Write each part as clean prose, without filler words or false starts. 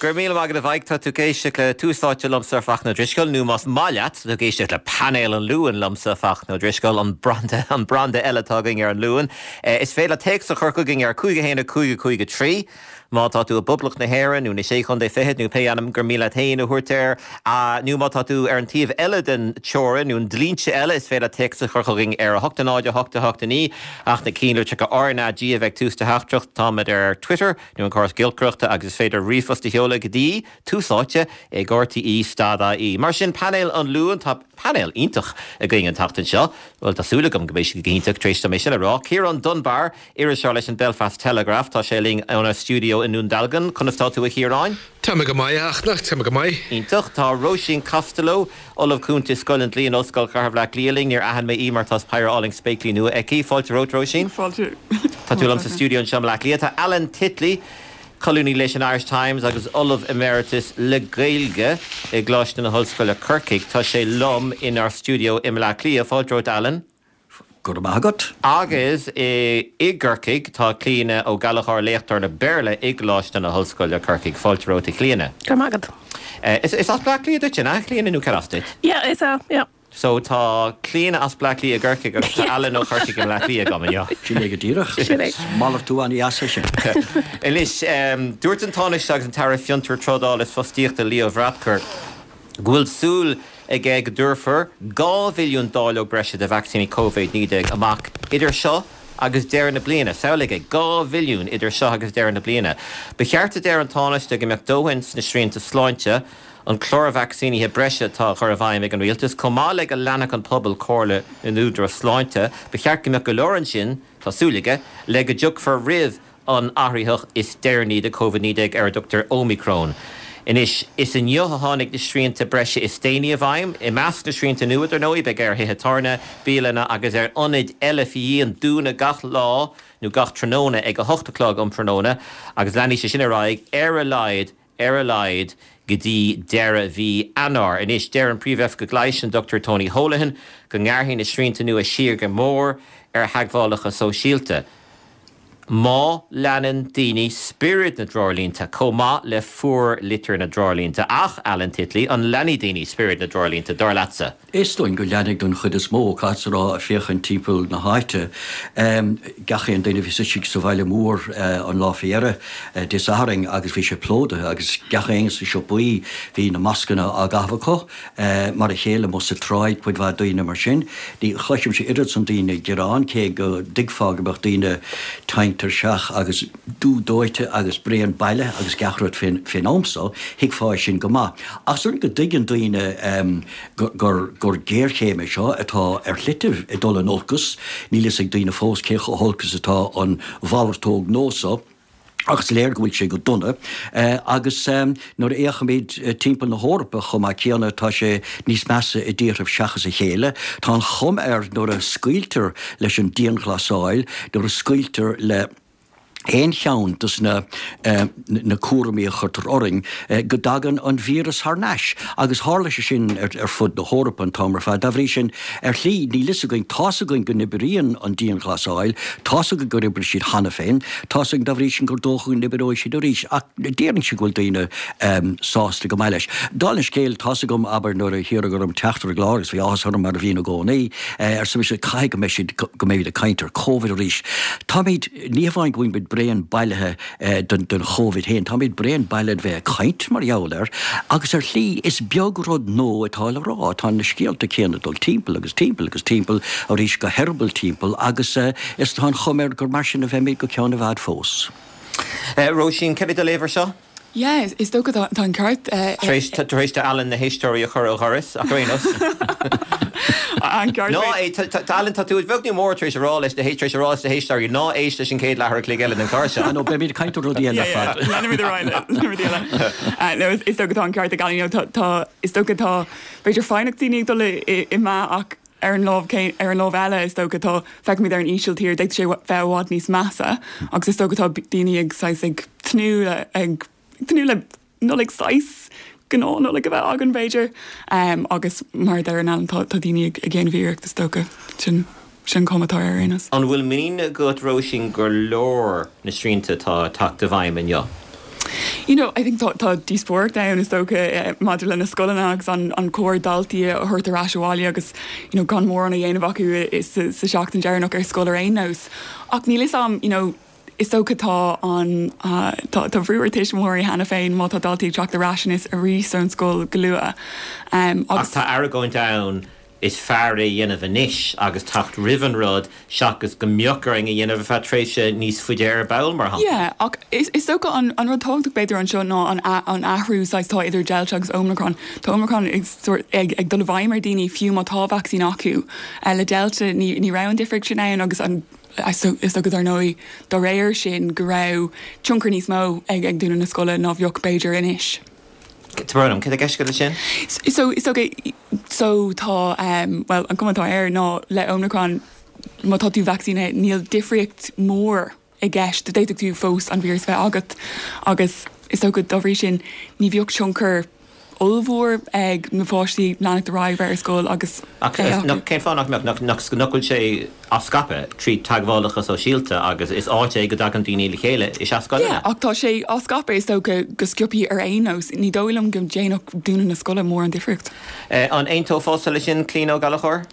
Go raibh míle maith agat a Mhaidhc, tá tú ag éisteacht le Tús Áite liomsa Fachtna Ó Drisceoil, nó más maith leat, tá tú ag éisteacht le Painéal an Luain liomsa Fachtna Ó Drisceoil, an branda, an branda eile atá againn ar an Luan. Is féidir leat téacs a chur chugainn ar 5 1 5 5 3 má tá tú i bPoblacht na hÉireann nó na Sé Chontae Fichead nó pé ainm gur mian leat féin a thabhairt air, nó má tá tú ar an taobh eile den teorainn nó an dlínse eile, is féidir leat téacs a chur chugainn ar 8 0 8 8 9 ach na cinnlitreacha RnaG a bheith ag tús do theachtaireacht. Táimid ar Twitter. nó an córas giolcaireachta agus is féidir ríomhphost a sheoladh go dtí, Tús Áite ag RTÉ stad IE. Mar sin, painéal an Luain, tá painéal iontach againn an tseachtain seo, bhuel tá súil agam go mbeidh siad go hiontach tar éis dom é sin a rá. Ciarán Dunbar, iriseoir leis an Belfast Telegraph, tá sé linn óna stiúideo i nDún Dealgan. Conas tá tú a Chiaráin? Tá mé go maith, a Fhachtna, tá mé go maith. Iontach. Tá Róisín Costello, Ollamh Cúnta i Scoil an Dlí in Ollscoil Chathair Bhaile Átha Cliath linn. Níor aithin mé í mar tá péire álainn spéaclaí nua aici. Fáilte romhat, Róisín. Fáilte. Tá tú liom sa stiúideo anseo i mBaile Átha Cliath. Tá Alan Titley, colúnaí leis an Irish Times agus Ollamh Emeritus le Gaeilge i gColáiste na hOllscoile Corcaigh. Tá sé liom inár stiúideo i mBaile Átha Cliath. Fáilte romhat, Alan. Go raibh maith agat. Agus i gCorcaigh tá Clíona Ó Gallchóir, léachtóir le Béarla i gColáiste na hOllscoile, Corcaigh. Fáilte romhat, a Chlíona. Go raibh maith agat. Is as Bleá Cliath duit, an ea, a Chlíona, nó cad as duit? Yeah, is ea, yeah. So tá Clíona as Bleá Cliath i gCorcaigh agus tá Alan ó Chorcaigh i mBleá Cliath agam inniu. Sin é go díreach. Sin é. Malartú an-dheas é sin. Anois, dúirt an Tánaiste agus an tAire Fiontar, Trádála is Fostaíochta Leo Varadkar go bhfuil súil aige go dtabharfar 2 mhilliún dáileog breise de vacsaíní Covid-19 amach idir seo agus deireadh na bliana. Samhlaigh é, 2 mhilliún idir seo agus deireadh na bliana. Ba cheart, a deir an Tánaiste, go mbeadh dóthain sna srianta sláinte, an clár vacsaínithe breise atá á chur i bhfeidhm ag an rialtas, chomh maith le go leanfadh an pobal comhairle na n-údarás sláinte. Ba cheart go mbeadh go leor ansin, tá súil aige, le go dtiocfar roimh an athraitheach is deireanaí de Covid-19 ar a dtugtar Ómicrón. Anois, is inniu a tháinig na srianta breise is déanaí i bhfeidhm. I measc na srianta nua, dar ndóigh, beidh ar thithe tábhairne, bialanna agus ar ionaid eile faoi dhíon dúnadh gach lá nó gach tráthnóna ag 8 a chlog um thráthnóna agus leanfaidh sé sin ar aghaidh ar a laghad ar a laghad go dtí deireadh mhí Eanáir. Anois, deir an Príomh-Oifigeach Leighis, an Dr Tony Holohan, go ngearrfaidh na srianta nua siar go mór ar theagmhálacha sóisialta. Má leanann daoine spiorad na dtreoirlínte chomh maith le fuarlitir na dtreoirlínte. Ach, Alan Titley, an leanfaidh daoine spiorad na dtreoirlínte, dar leatsa? Is dóigh go leanfaidh don chuid is mó, caithfeadsa a rá, ag féachaint timpeall na háite. Gach aon duine a bhí istigh sa bhaile mór an lá faoi dheireadh, Dé Sathairn, agus bhí sé plódaithe agus gach éinne sna siopaí, bhí na mascanna á gcaitheamh acu. Mar a chéile amuigh sa tsráid, cuid mhaith daoine mar sin. Ní chloisimse oiread san daoine ag gearán, cé go dtuigfeá go mbeadh daoine tinn tuirseach agus dubh dóite agus bréan baile agus gach rud fén am so, thuigfeá é sin go maith. Ach is dóigh go dtuigeann daoine gur géarchéim é seo atá ar shlite ag dul in olcas. Níl fhios ag daoine fós cé chomh holc is atá an mhalartóg nua so. Ach is léir go bhfuil sé go dona agus nuair a fhéachaimid timpeall na hEorpa chomh maith céanna tá sé níos measa i dtíorthaibh seachas a chéile. Tá an chuma air nuair a scaoiltear leis an dianghlasáil, nuair a scaoiltear le haon cheann dos na na cúraimí a chuirtear orainn, go dtagann an víreas thar n-ais. Agus tharla sé sin ar fud na hEorpa an t-am ar fad. Dá bhrí sin, Ar shlí, níl fhios againn, tá's againn go n-oibríonn an dianghlasáil, tá's againn gur oibrigh siad cheana féin, tá's againn dá bhrí sin gur dócha go n-oibreoidh siad arís, ach déarfainnse go bhfuil daoine sásta go maith leis. Dála an scéil, tá's agam, abair, nuair a hiarradh orm teacht ar an gclár, agus bhí áthas orm mar a bhíonn i gcónaí, arsa mise, caithfidh go mbeidh siad, go mbeimid ag caint ar Covid arís. Táimid, ní hamháin go bhfuilimid bréan bailithe, den Chóivid féin. Táimid bréan bailithe de bheith ag caint mar gheall air agus ar shlí is beag rud nua atá le rá. Tá na scéalta céanna ag dul timpeall agus timpeall agus timpeall arís go heireaball timpeall agus is tá an chuma air gur mar sin a bheimid go ceann i bhfad fós. Róisín, céard é do léamh ar seo? Yeah, is dócha tá an ceart. Tar éis, tar éis d'Alan na héisteoirí a chur ó dhoras, ach ar aon nós. An ceart. Ná é, tá Alan, tá tú beag nó mór tar éis a rá leis na, tar éis a rá leis na héisteoirí ná éist leis an chéad leathuair a chloig eile den chlár seo. Ah no, beimid ag caint ar rudaí eile ar fad. Leanfaimid ar aghaidh le rudaí eile. No, is dócha tá an ceart ag Alan, you know, tá, tá, is dócha tá, b'fhéidir foighneacht daoine ag dul i meath ach ar an lámh, ar an lámh eile is dócha tá, feicimid ar an Ísiltír, d'fhéadfadh sé bheith i bhfad níos measa agus is dócha tá daoine ag saghas ag tnúth le, ag tnúth le Nollaig saghas gnáth-Nollaig a bheith againn b'fhéidir agus mar a deir Alan tá daoine ag déanamh iarracht is dócha, sin sin an chuma atá air ar aon nós. An bhfuil muinín agat Róisín gur leor na srianta atá ag teacht i bhfeidhm inniu? You know, I think tá tá díospóireacht ann is dócha maidir le na scoileanna agus an an cóir daltaí a thabhairt ar ais abhaile agus you know gan mórán a dhéanamh acu sa sa seachtain deireanach ar scoil ar aon nós. Ach níl fhios a'm, you know, is dócha tá an tá tá brú ar tuismitheoirí cheana féin má tá daltaí ag teacht ar ais anois arís ón scoil go luath. Ach Agus. tá argóint ann Is fearr é a dhéanamh anois agus teacht roimh an rud seachas go mbeadh orainn a dhéanamh ar feadh tréimhse níos faide ar ball, mar shampla. Yeah, ach is dócha an rud tábhachtach b'fhéidir anseo ná an an athrú saghas atá idir Delta agus Omicron. Tá Omicron ag sórt ag ag dul i bhfeidhm ar daoine fiú má tá vacsaín acu. Le Delta ní ní raibh an difríocht sin ann agus an is dócha dar ndóigh dá réir sin go raibh tionchar níos mó ag ag dúnadh na scoile ná bheadh b'fhéidir anois. Tá brón orm, céard atá i gceist agat leis sin? So, is dócha, so tá, bhuel, an cuma atá air ná le Omicron, má tá tú vacsaínithe, níl difríocht mhór i gceist, d'fhéadfadh tú fós an víreas a bheith agat agus is dócha dá bhrí sin ní bheadh tionchar ollmhór ag na páistí leanacht ar aghaidh bheith ar scoil agus Ach é acu. Cén fáth nach mbeadh? Nach bhfuil sé á scaipeadh trí teagmhálacha sóisialta agus is áit é go dtagann daoine le chéile is ea scoileanna. Yeah, ach tá sé á scaipeadh is dócha go sciobthaí ar aon nós. Ní dóigh liom go ndéanfadh dúnadh na scoile mórán difríocht. An aontófása leis sin, Clíona Ó Gallchóir?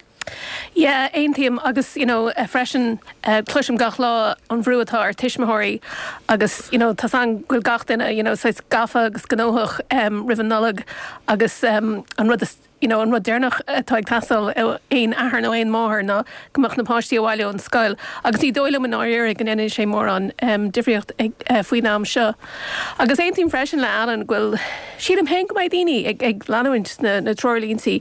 Yeah, aontaím agus you know freisin cloisim gach lá an bhrú atá ar tuismitheoirí agus you know tá's a'm go bhfuil gach duine you know saghas gafa agus gnóthach roimh an Nollaig agus an rud is you know an rud deireanach atá ag teastáil ó aon athair nó aon máthair ná go mbeadh na páistí abhaile ón scoil agus ní dóigh liom i ndáiríre go ndéanfaidh sé mórán difríocht faoin am seo. Agus aontaím freisin le Alan go bhfuil, sílim féin go mbeidh daoine ag ag leanúint na na treoirlíntí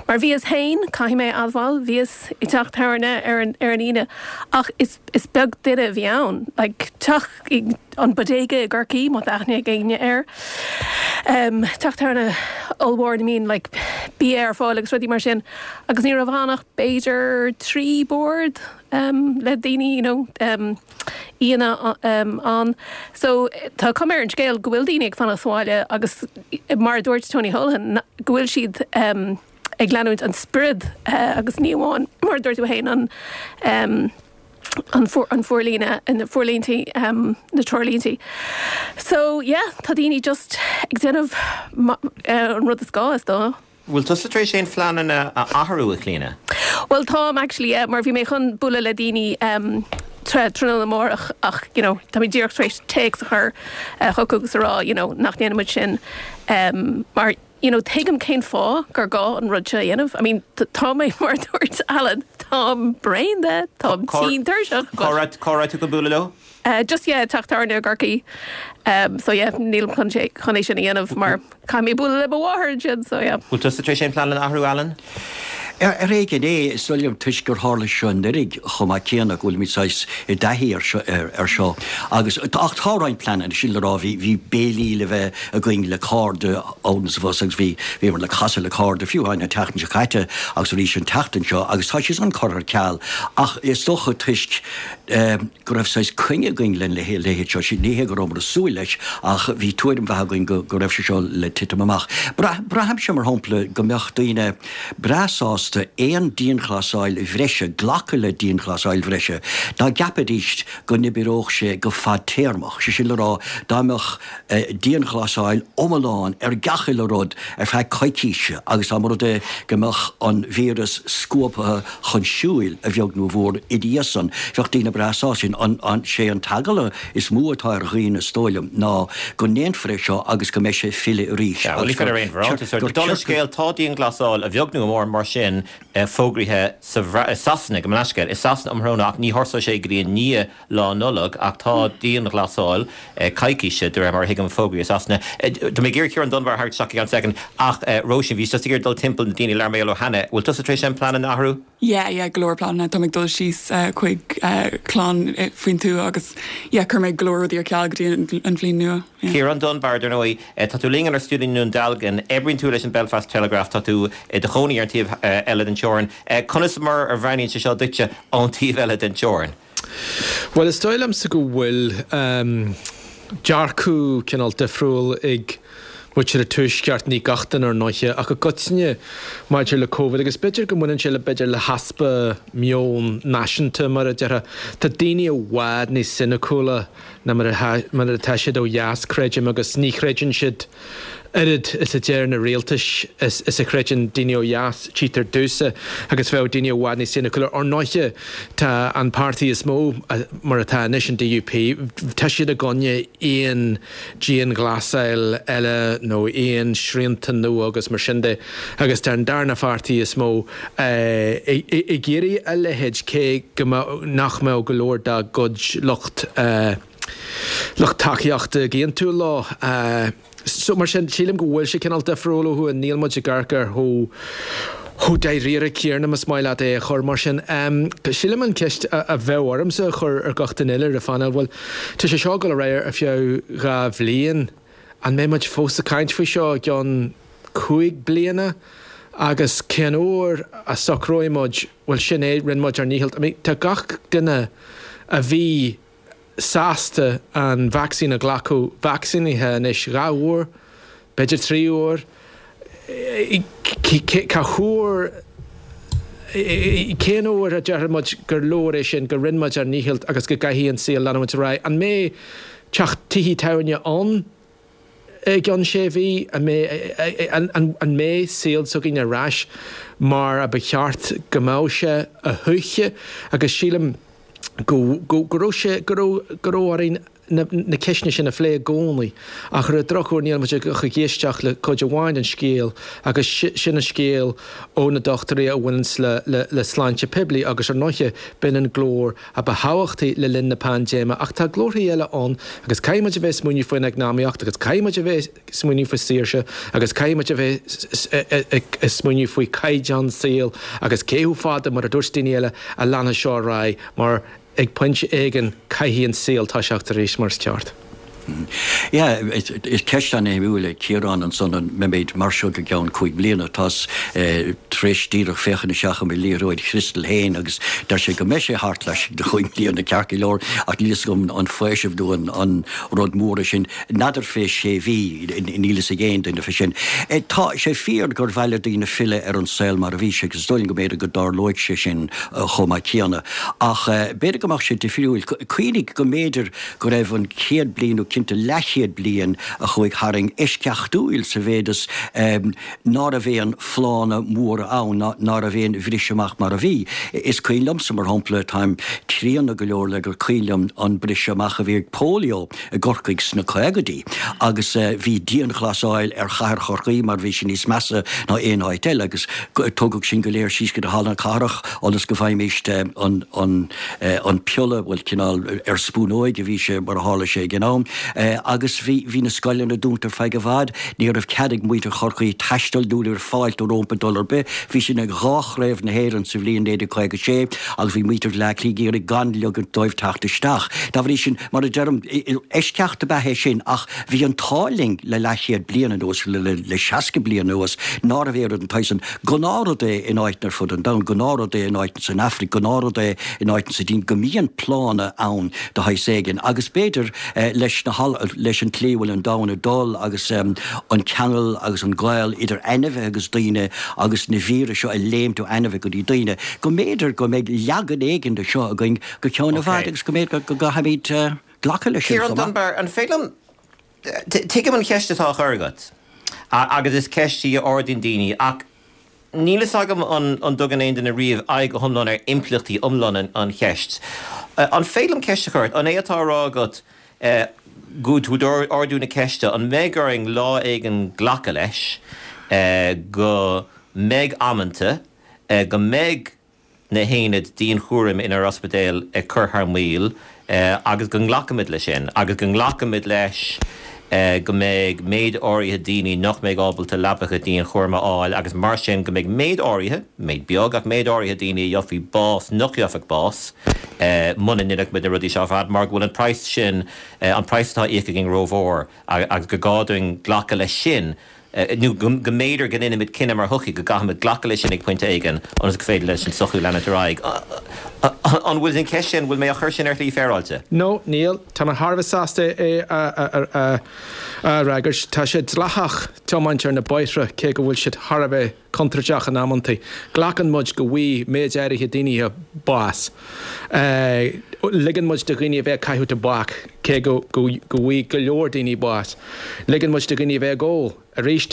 mar bhíos féin, caithfidh mé a admháil, bhíos i dteach tábhairne ar an ar an Aoine ach is is beag duine a bhí ann, like teach an Bodega i gCorcaigh, má tá aithne ag éinne air. Teach tábhairne ollmhór ina mbíonn like bia ar fáil agus rudaí mar sin agus ní raibh ann ach b'fhéidir 3 bord le daoine you know aíonna ann. So tá cuma ar an scéal go bhfuil daoine ag fanacht sa bhaile agus mar a dúirt Tony Holohan go bhfuil siad ag leanúint an spiorad agus ní amháin mar a dúirt tú féin an an forlíne, na forlíntí, na treoirlíntí. So yeah, tá daoine just ag déanamh an rud is gá, is dóigh. Bhfuil tusa tar éis aon phleananna a athrú, a Chlíona? Bhuel táim actually, yeah, mar bhí mé chun bualadh le daoine tráthnóna amárach ach you know tá mé díreach tar éis téacs a chur chucu agus a rá you know nach ndéanfaidh muid sin mar you know, tuigim cén fáth gur gá an rud seo a dhéanamh. I mean, tá mé, mar a dúirt Alan, táim bréan de, táim tinn tuirseach, but. Cá raibh tú chun bualadh leo? Just, yeah, teach tábhairne i gCorcaigh. So yeah, nílim chun sé, chun é sin a dhéanamh mar caithfidh mé bualadh le mo mháthair ansin, so yeah. Bhfuil tusa tar éis aon pleananna a athrú, Alan? Ar éigean é, is dóigh liom, toisc gur tharla seo anuraidh chomh maith céanna, go bhfuilimid saghas i dtaithí air seo. Agus, ach tá roinnt pleananna, sin le rá, bhí, bhí béilí le bheith againn le cairde ann is abhus agus bhí, bhíomar le casadh le cairde fiú amháin an tseachtain seo caite agus arís an tseachtain seo agus tá sé san curtha ar ceal. Ach is dócha toisc go raibh saghas coinne againn lena leithéid seo, ní hé go rabhamar ag súil leis ach bhí tuairim mhaith againn go, go raibh sé seo le titim amach. Braithimse, mar shampla, go mbeadh daoine breá sásta aon dianghlasáil bhreise, glacadh le dianghlasáil bhreise, dá gceapfaidís go n-oibreodh sé go fadtéarmach, sé sin le rá, dá mbeadh dianghlasáil iomlán ar gach uile rud ar feadh coicíse agus dá mba rud é go mbeadh an víreas scuabtha chun siúil, a bheag nó a mhór, ina dhiaidh san, bheadh daoine breá sásta. Sin an, sé an t-eagla is mó atá ar dhaoine, is dóigh liom, ná go ndéanfar é seo agus go mbeidh sé ag filleadh arís agus gur gur Dála an scéil, tá dianghlasáil, a bheag nó a mhór, mar sin, fógraithe sa i Sasana, gabh mo leithscéal, i Sasana um thráthnóna ach ní thosóidh sé go dtí i ndiaidh Lá Nollag ach tá dianghlasáil coicíse, de réir mar a thuigim, fógraithe i Sasana. Tá mé ag iarraidh Ciarán Dunbar a tharraingt isteach i gceann soicind ach Róisín, bhíos just ag iarraidh dul timpeall na daoine a labhair mé leo cheana. Bhfuil tusa tar éis aon pleananna a athrú? Yeah, yeah, go leor pleananna. Tá mé ag dul síos chuig clann faoin tuath agus yeah, chuir mé go leor rudaí ar ceal go dtí an bhliain nua. Yeah. Ciarán Dunbar, dar ndóigh, tá tú linn inár stiúideo i nDún Dealgan, oibríonn tú leis an Belfast Telegraph, tá tú i do chónaí ar an taobh eile den teorainn. Conas mar a bhreathnaíonn sé seo duitse ón taobh eile den teorainn? Bhuel, is dóigh liomsa go bhfuil dearcadh cineál difriúil ag. mhuintir an Tuaisceart, ní gach duine ar ndóiche, ach i gcoitinne maidir le Covid agus b'fhéidir go mbaineann sé le b'fhéidir le heaspa meon náisiúnta mar a déarfá. Tá daoine i bhfad níos soiniciúla ná mar atá siad ó dheas, creidim, agus ní chreideann siad oiread is a deir na rialtais is a chreideann daoine ó dheas, tchítear domhsa, agus bheadh daoine i bhfad níos soiniciúla. Ar ndóiche, tá an páirtí is mó, mar atá anois, an DUP, tá siad i gcoinne aon dianghlasáil eile nó aon srianta nua agus mar sin de, agus tá an darna pháirtí is mó ag iarraidh a leithéid, cé go mbeadh, nach mbeadh go leor dá gcuid lucht. lucht tacaíochta ag aontú leo. So, mar sin, sílim go bhfuil sé cineál difriúil ó thuaidh, níl muid ag amharc air chomh chomh dáiríre céanna, más maith leat é a chur mar sin. Sílim an cheist a bheadh ormsa a chur ar gach duine eile ar an phainéal, bhuel, tá sé seo ag dul ar aghaidh ar feadh 2 bhliain, an mbeidh muid fós ag caint faoi seo i gceann 5 bliana? Agus cén uair a socróidh muid, bhuel, sin é, rinne muid ár ndícheall. I mean, tá gach duine a bhí sásta an vacsaín a ghlacadh vacsaínithe anois 2 uair, b'fhéidir 3 uair. Cá huair, cén uair a déarfaidh muid gur leor é sin, go rinne muid ár ndícheall agus go gcaithfidh an saol leanúint ar aghaidh? An mbeidh teach tithe tábhairne ann i gceann sé mhí? An mbeidh, an mbeidh saol s'againn ar ais mar a ba cheart go mbeadh sé a thuaithe? Agus sílim go, go, go raibh sé, go raibh, go raibh orainn na, na ceisteanna sin a phlé i gcónaí. Ach ar an drochuair níl muid ach ag éisteacht le cuid amháin den scéal agus sin an scéal ó na dochtúirí a bhaineanns le, le, le sláinte poiblí agus ar ndóiche b'in an glór a ba thábhachtaí le linn na paindéime ach tá glórthaí eile ann agus caithfidh muid a bheith ag smaoineamh faoin eacnamaíocht agus caithfidh muid a bheith ag smaoineamh faoi saoirse agus caithfidh muid a bheith ag smaoineamh faoi chaighdeán saoil agus cé chomh fada, mar a dúirt daoine eile, a leanfaidh seo ar aghaidh mar ag pointe éigin caithfidh an saol toiseacht arís mar is ceart. Yeah, is ceist an-shuimiúil é Ciarán ansan, an mbeimid mar seo go gceann 5 bliana? Tá's tar éis díreach féachaint isteach i mo liathróid chriostail féin agus deir sé go mbeidh sé thart laistigh de chúig bliana ceart go leor ach níl fhios agam an faoiseamh nó an rud mór é sin. N'fheadar fé sé mhí, níl fhios ag aon duine fé sin. Tá sé fíor gur mhaith le daoine filleadh ar an saol mar a bhí sé agus is dóigh liom go mb'fhéidir go dtarlóidh sé sin chomh maith céanna. Ach b'fhéidir go mbeadh sé difriúil. Cuimhnigh go mb'fhéidir go raibh an chéad bliain, nó cinnte leathchéad bliain a chuaigh tharainn, eisceachtúil sa mhéid is ná raibh aon phlánna móra ann, ná raibh aon bhriseadh amach mar a bhí. Is cuimhin liomsa, mar shampla, táim críonna go leor le gur cuimhin liom an briseadh amach a bhí ag polio i gCorcaigh sna caogaidí agus bhí dianghlasáil ar chathair Chorcaí mar bhí sé níos measa ná aon áit eile agus tugadh sinn go léir síos go dtí Halla na Cathrach ionas go bhfaighimíst an an an piolla, bhuel, cineál ar spúnóig a bhí sé mar a tharla sé ag an am, agus bhí, bhí na scoileanna dúnta ar feadh i bhfad, ní raibh cead ag muintir Chorcaí taisteal nó ní raibh fáilte rómpa dul ar bith, bhí sin ag dhá chraobh na hÉireann sa bhliain 1956 agus bhí muintir Bhaile Átha Cliath ag iarraidh gan ligint dóibh teacht isteach. Dá bhrí sin, mar a deirim, eisceacht ab ea é sin ach bhí an t-ádh linn le leathchéad bliain anuas, le 60 bliain anuas, ná raibh aon rud den tsaghas san. Gnáthrud é in áiteanna ar fud an domhain, gnáthrud é in áiteanna san Afraic, gnáthrud é in áiteanna sa tSín go mbíonn plánna ann de shaghas éigin agus b'fhéidir leis na leis an tslí a bhfuil an domhan ag dul agus an ceangal agus an gaol idir ainmhithe agus daoine agus na víris seo ag léimt ó ainmhithe go dtí daoine, go mb'fhéidir go mbeidh leagan éigin de seo againn go ceann i bhfad agus go mb'fhéidir go gcaithfimid glacadh leis sin Ciarán chomh maith. Dunbar, an féidir liom Tuigim an cheist atá á chur agat agus is ceist í a ardaíonn daoine ach níl fhios agam an dtugann aon duine riamh aghaidh go hiomlán ar impleachtaí iomlán an cheist. An féidir liom ceist a chur ort? An é atá á rá agat go tú ag ardú na ceiste an mbeidh orainn lá éigin glacadh leis go mbeidh amanta go mbeidh na haonaid dianchúraim inár ospidéil ag cur thar maoil agus go nglacfaimid leis sin agus go nglacfaimid leis go mbeidh méid áirithe daoine nach mbeidh ábalta leapacha dianchúraim a fháil agus mar sin go mbeidh méid áirithe, méid beag ach méid áirithe daoine a gheobhaidh bás nach gheobhadh bás muna ndéanfadh muid na rudaí seo ar fad mar go bhfuil an praghas sin, an praghas atá á íoc againn rómhór agus gur gá dúinn glacadh leis sin. nó go mb'fhéidir go ndéanfaimid cinneadh mar shochaí go gcaithfimid glacadh leis sin ag pointe éigin ionas gur féidir leis an tsochaí leanúint ar aghaidh. An bhfuil an cheist sin, bhfuil mé á chur sin ar shlí féaráilte? No, níl. Tá mé thar a bheith sásta é a fhreagairt. Tá sé dleathach tiomáint ar na bóithre cé go bhfuil siad thar a bheith contúirteach in amantaí. Glacann muid go bhfaighidh méid áirithe daoine bás. Ligeann muid do dhaoine a bheith ag caitheamh tobac cé go bhfaighidh go leor daoine bás. Ligeann muid do dhaoine a bheith ag ól. Arís,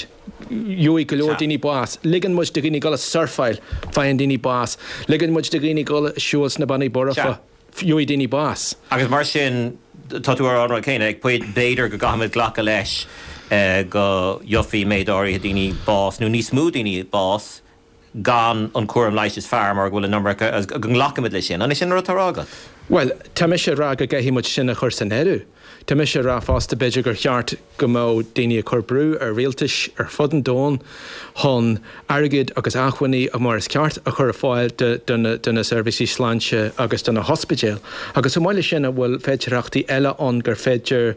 gheobhaidh go leor daoine bás. Ligeann muid do dhaoine dul ag surfáil, faigheann daoine bás. Ligeann muid do dhaoine dul ag siúl sna Bannaí Borfa, gheobhaidh daoine bás. Agus mar sin, tá tú á rá an rud céanna, ag pointe, b'fhéidir go gcaithfimid glacadh leis go gheobhaidh méid áirithe daoine bás, nó níos mó daoine bás, gan an cúram leighis is fearr mar go bhfuil an iomarca, agus go nglacfaimid leis sin. An é sin an rud atá á rá agat? Bhuel, tá mise ag rá go gcaithfidh muid sin a chur san áireamh. Tá mise ag rá fosta, b'fhéidir gur cheart go mbeadh daoine ag cur brú ar rialtais ar fud an domhain chun airgead agus acmhainní mar is ceart a chur ar fáil do na seirbhísí sláinte agus do na hospidéil. Agus chomh maith leis sin, an bhfuil féidearthachtaí eile ann gur féidir,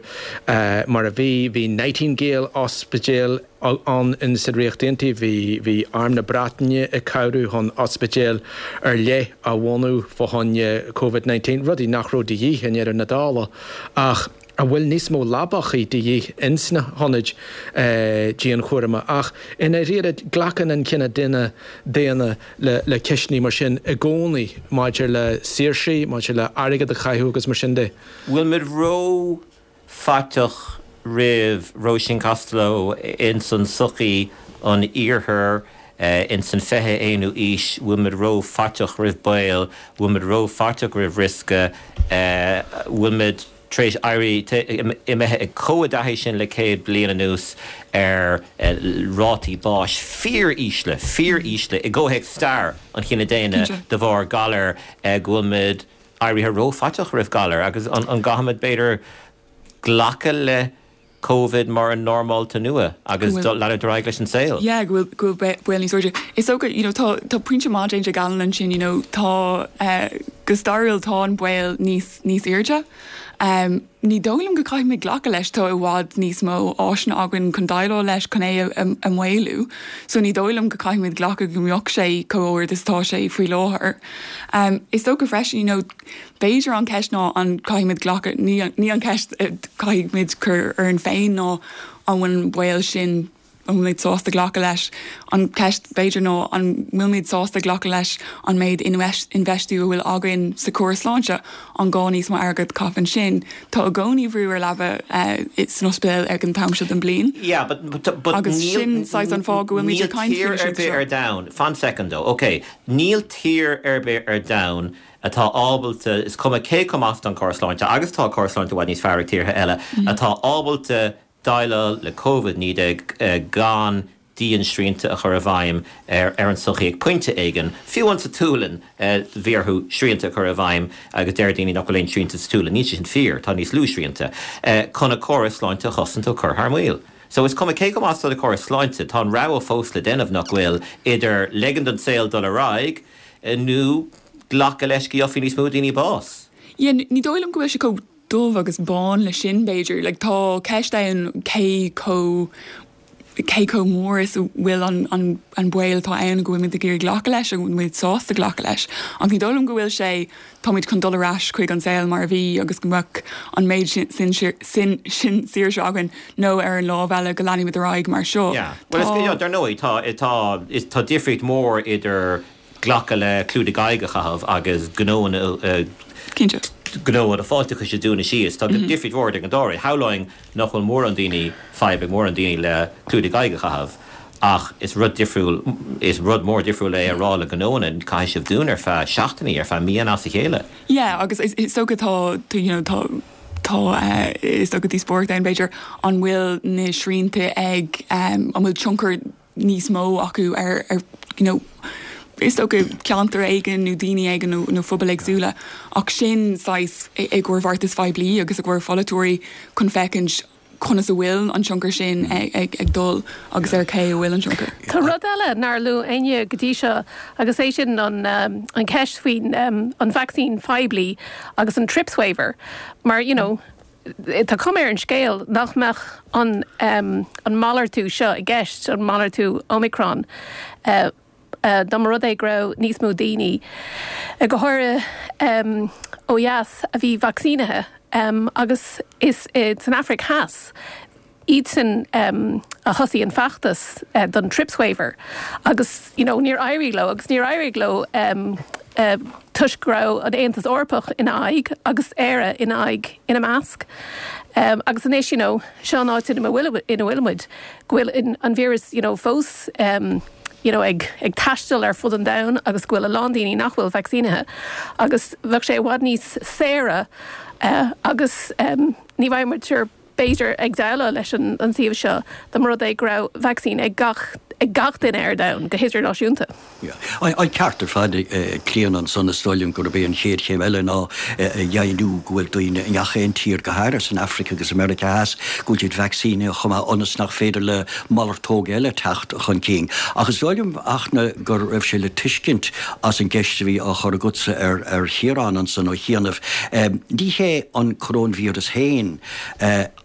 mar a bhí, bhí Nightingale Ospidéal ann in sa Ríocht Aontaithe, bhí, bhí Arm na Breataine ag cabhrú chun ospidéil ar leith a bhunú fá choinne Covid 19, rudaí nach raibh de dhíth i ndeireadh na dála ach an bhfuil níos mó leabachaí de dhíth ins na hionaid dianchúraim. Ach i ndáiríre, glacann an cine daonna daonna le le ceisteanna mar sin i gcónaí maidir le saoirsí, maidir le airgead a chaitheamh agus mar sin de. Bhfuil muid ró faiteach roimh Róisín Costello ins an sochaí an iarthair ins an 21ú aois, bhfuil muid ró faiteach roimh baol, bhfuil muid ró faiteach roimh riosca, bhfuil muid tar éis éirí imithe chomh i dtaithí sin le 100 bliain anuas ar rátaí báis fíor ísle, fíor ísle i gcomhthéacs stair an chine daonna de bharr galar go bhfuil muid éirithe ró-fhaiteach roimh ghalar agus an gcaithfimid b'fhéidir glacadh le Covid mar an normálta nua agus leanúint ar aghaidh leis an saol. Yeah, go bhfuil go bhfuil baol níos airde. Is dócha, you know, tá tá pointe maith déanta ag Alan ansin, you know, tá eh, go stairiúil tá an baol níos níos airde. Um, ní dóigh liom go caithfimid glacadh leis, tá i bhfad níos mó áiseanna againn chun déileáil leis, chun é a, a, a mhaolú. So ní dóigh liom go caithfimid glacadh go mbeadh sé chomh ard is atá sé faoi láthair. Um, is dócha freisin, you know, b'fhéidir an ceist ná an caithfimid glacadh, ní, ní an ceist caithfimid cur orainn féin ná an bhfuil an baol sin an bhfuilimid sásta glacadh leis? An ceist b'fhéidir ná an bhfuilimid sásta glacadh leis an méid infheistiú a bhfuil againn sa chóras sláinte? An gá níos mó airgead a chaitheamh ansin? Tá i gcónaí brú ar leaba san ospidéal ag an t-am seo den bliain. Yeah, but, but, but Agus sin saghas an fáth go bhfuilimid ag caint faoi seo. Níl tír ar bith ar domhan, fan soicind though, ok, níl tír ar bith ar domhan atá ábalta, is cuma cé chomh maith is atá an córas sláinte, agus tá córas sláinte i bhfad níos fearr ag tíortha eile, atá ábalta déileáil le Covid-19 gan dian-srianta a chur i bhfeidhm ar an tsochaí ag pointe éigin. Fiú amháin sa tSualainn bhí orthu srianta a chur i bhfeidhm agus deir daoine nach bhfuil aon srianta sa tSualainn. Níl sé sin fíor, tá níos lú srianta, chun a córas sláinte a chosaint ó chur thar maoil. So is cuma cé chomh maith is atá do chóras sláinte, tá an rogha fós le déanamh, nach bhfuil, idir ligean don saol dul ar aghaidh nó glacadh leis go gheobhaidh níos mó daoine bás. Yeah, ní dóigh liom go bhfuil sé chomh dubh agus bán le sin, b'fhéidir. Like, tá ceist ann cé chomh cé chomh mór is a bhfuil an an an baol atá ann go bhfuilimid ag iarraidh glacadh leis, go bhfuilimid sásta glacadh leis. Ach ní dóigh liom go bhfuil sé, táimid chun dul ar ais chuig an saol mar a bhí agus go mbeadh an méid sin sin sin sin saoirse againn nó ar an lámh eile go leanfaimid ar aghaidh mar seo. Yeah. Well, is, yeah, dar ndóigh, tá tá tá difríocht mhór idir glacadh le clúdaigh aghaidh a chaitheamh agus gnóanna Cinnte. gnóanna fáilteachais a dúnadh síos. Tá difríocht mhór idir an dá rud. Shamhlóinn nach bhfuil mórán daoine, fadhb ag mórán daoine le clúdaigh aghaidh a chaitheamh ach is rud difriúil, is rud mór difriúil é a rá le gnóanna, caithfidh sibh dúnadh ar feadh seachtainí, ar feadh míonna as a chéile. Yeah, agus is dócha tá, you know, tá, tá, is dócha díospóireacht ann b'fhéidir, an bhfuil na srianta ag, an bhfuil tionchar níos mó acu ar you know is dócha ceantar éigin nó daoine éigin nó nó phobail éagsúla ach sin saghas i gcomhair bheartais phoiblí agus i gcomhair pholaiteoirí chun féachaint conas a bhfuil an tionchar sin ag ag dul agus ar cé a bhfuil an tionchar. Tá rud eile nár luaigh éinne go dtí seo agus é sin an an cheist faoin an vacsaín phoiblí agus an trips waiver mar you know. tá cuma ar an scéal nach mbeadh an an malartú seo i gceist, an malartú Omicron, dá mba rud é go raibh níos mó daoine, go háirithe ó dheas, a bhí vacsaínithe agus is san Afraic Theas iadsan a thosaigh an feachtas don TRIPS waiver agus you know níor éirigh leo agus níor éirigh leo toisc go raibh an Aontas Eorpach ina aghaidh agus Éire ina aghaidh ina measc. Agus anois you know seo an áit ina bhfuil ina bhfuil muid go bhfuil an víreas you know fós you know ag ag taisteal ar fud an domhain agus go bhfuil a lán daoine nach bhfuil vacsaínithe agus bheadh sé i bhfad níos saoire agus ní bheadh muid ar b'fhéidir, ag déileáil leis an suíomh seo dá mba rud é go raibh vacsaín ag gach ag gach duine ar domhan, go hidirnáisiúnta. An ceart ar fad ag Clíona ansan. Is dóigh liom gurb é an chéad chéim eile ná a dheimhniú go bhfuil daoine i ngach aon tír, go háirithe san Afraic agus i Meiriceá Theas, go bhfuil siad vacsaínithe chomh maith ionas nach féidir le malartóg eile teacht chun cinn. Ach is dóigh liom, Fhachtna, go raibh sé le tuiscint as an gceist a bhí á chur agatsa ar Chiarán ansan ó chianaibh, ní hé an coróinvíreas féin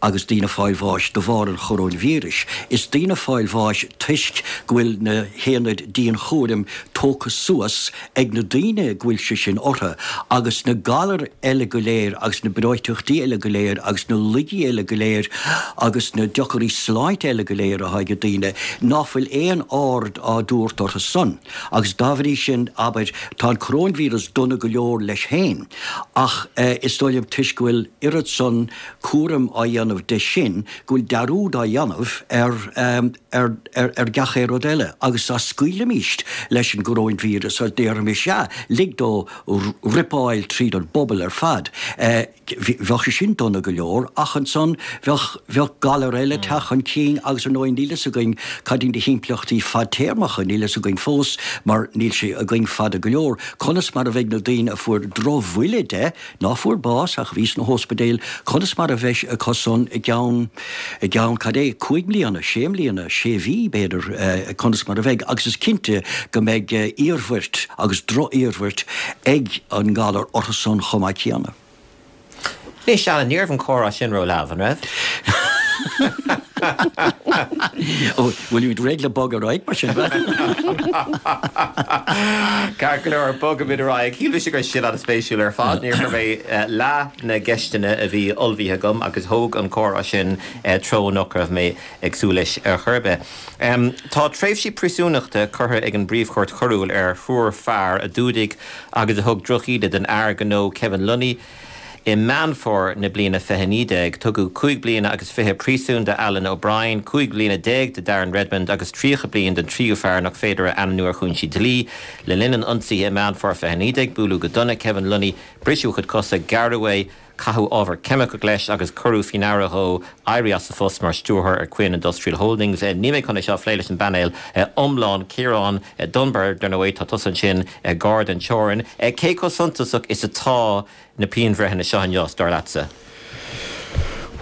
agus daoine ag fáil bháis de bharr an choróinvíris. Is daoine ag fáil bháis toisc go bhfuil na haonaid dianchúraim tógtha suas ag na daoine go bhfuil sé sin orthu, agus na galair eile go léir agus na breoiteachtaí eile go léir agus na laigí eile go léir agus na deocairí sláinte eile go léir atá ag daoine, ná fuil aon aird á dtabhairt orthu san. Agus dá bhrí sin, abair, tá an coróinvíreas dona go leor leis féin, ach is dóigh liom toisc go bhfuil oiread san cúraim á dhéanamh de sin, go bhfuil dearúd á dhéanamh ar ar ar gach aon rud eile. Agus dá scaoilfimíst leis an gcoróinvíreas, agus déarfaimis, sea, lig dó ripeáil tríd an bpobal ar fad, Bheadh sé sin dona go leor, ach ansan bheadh, bheadh galar eile ag teacht chun cinn agus ar ndóigh níl fhios againn cad iad na himpleachtaí fadtéarmacha, níl fhios againn fós mar níl sé againn fada go leor, conas mar a bheidh na daoine a fuair drochbhuille de, ná fuair bás ach a bhí sna hóspidéil, conas mar a bheidh acu san i gceann, i gceann cad é, cúig mbliana, sé mbliana, sé mhí b'fhéidir, conas mar a bheidh agus is cinnte go mbeidh iarmhairt agus droch-iarmhairt ag an ngalar orthu san chomh maith céanna. Anois, Alan, ní raibh an comhrá sin ró-leamh, an raibh? Ó, bhfuilimid réidh le bogadh ar aghaidh mar sin? Ceart go leor, bogfaimid ar aghaidh. Shíl mise go raibh sin an-spéisiúil ar fad. Níor chuir mé leath na gceisteanna a bhí ullmhaithe agam agus thóg an comhrá sin treo nach raibh mé ag súil leis ar chor ar bith. Tá tréimhsí príosúnachta curtha ag an bPríomh-Chúirt Choiriúil ar thriúr fear a d'fhuadaigh agus a thug drochíde don fhear gnó Kevin Lunny i Meán Fómhair na bliana 2019. Tugadh cúig bliana agus fiche príosúin do Alan O'Brien, 15 bliana do Darren Redmond agus 30 bliain don tríú fear nach féidir a ainmniú ar chúinsí dlí. Le linn an ionsaithe i Meán Fómhair 2019, buaileadh go dona Kevin Lunny, briseadh a chuid cosa, gearradh é, Caitheadh ábhar ceimiceach leis agus cuireadh faoi ndeara dhó éirí as a phost mar stiúrthóir ar Quinn Industrial Holdings. Níl mé chun é seo a phlé leis an bpainéal iomlán. Ciarán Dunbar, dar ndóigh, tá tusa ansin gar don teorainn. Cé chomh suntasach is atá na pianbhreitheanna seo inniu, dar leatsa?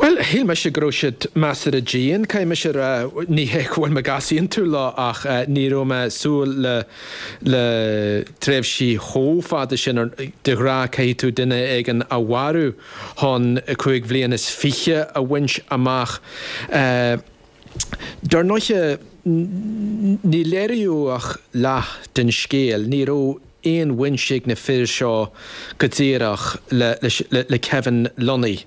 Bhuel, shíl mise go raibh siad measartha dian, caithfidh mise a rá. Ní hé go bhfuil mé ag easaontú leo ach ní raibh mé ag súil le le tréimhsí chomh fada sin. De ghnáth caithfidh tú duine éigin a mharú chun cúig bhliain is fiche a bhaint amach. Dar ndóiche, ní léiríodh ach leath den scéal. Ní raibh aon bhaint ag na fir seo go díreach le Kevin Lunny.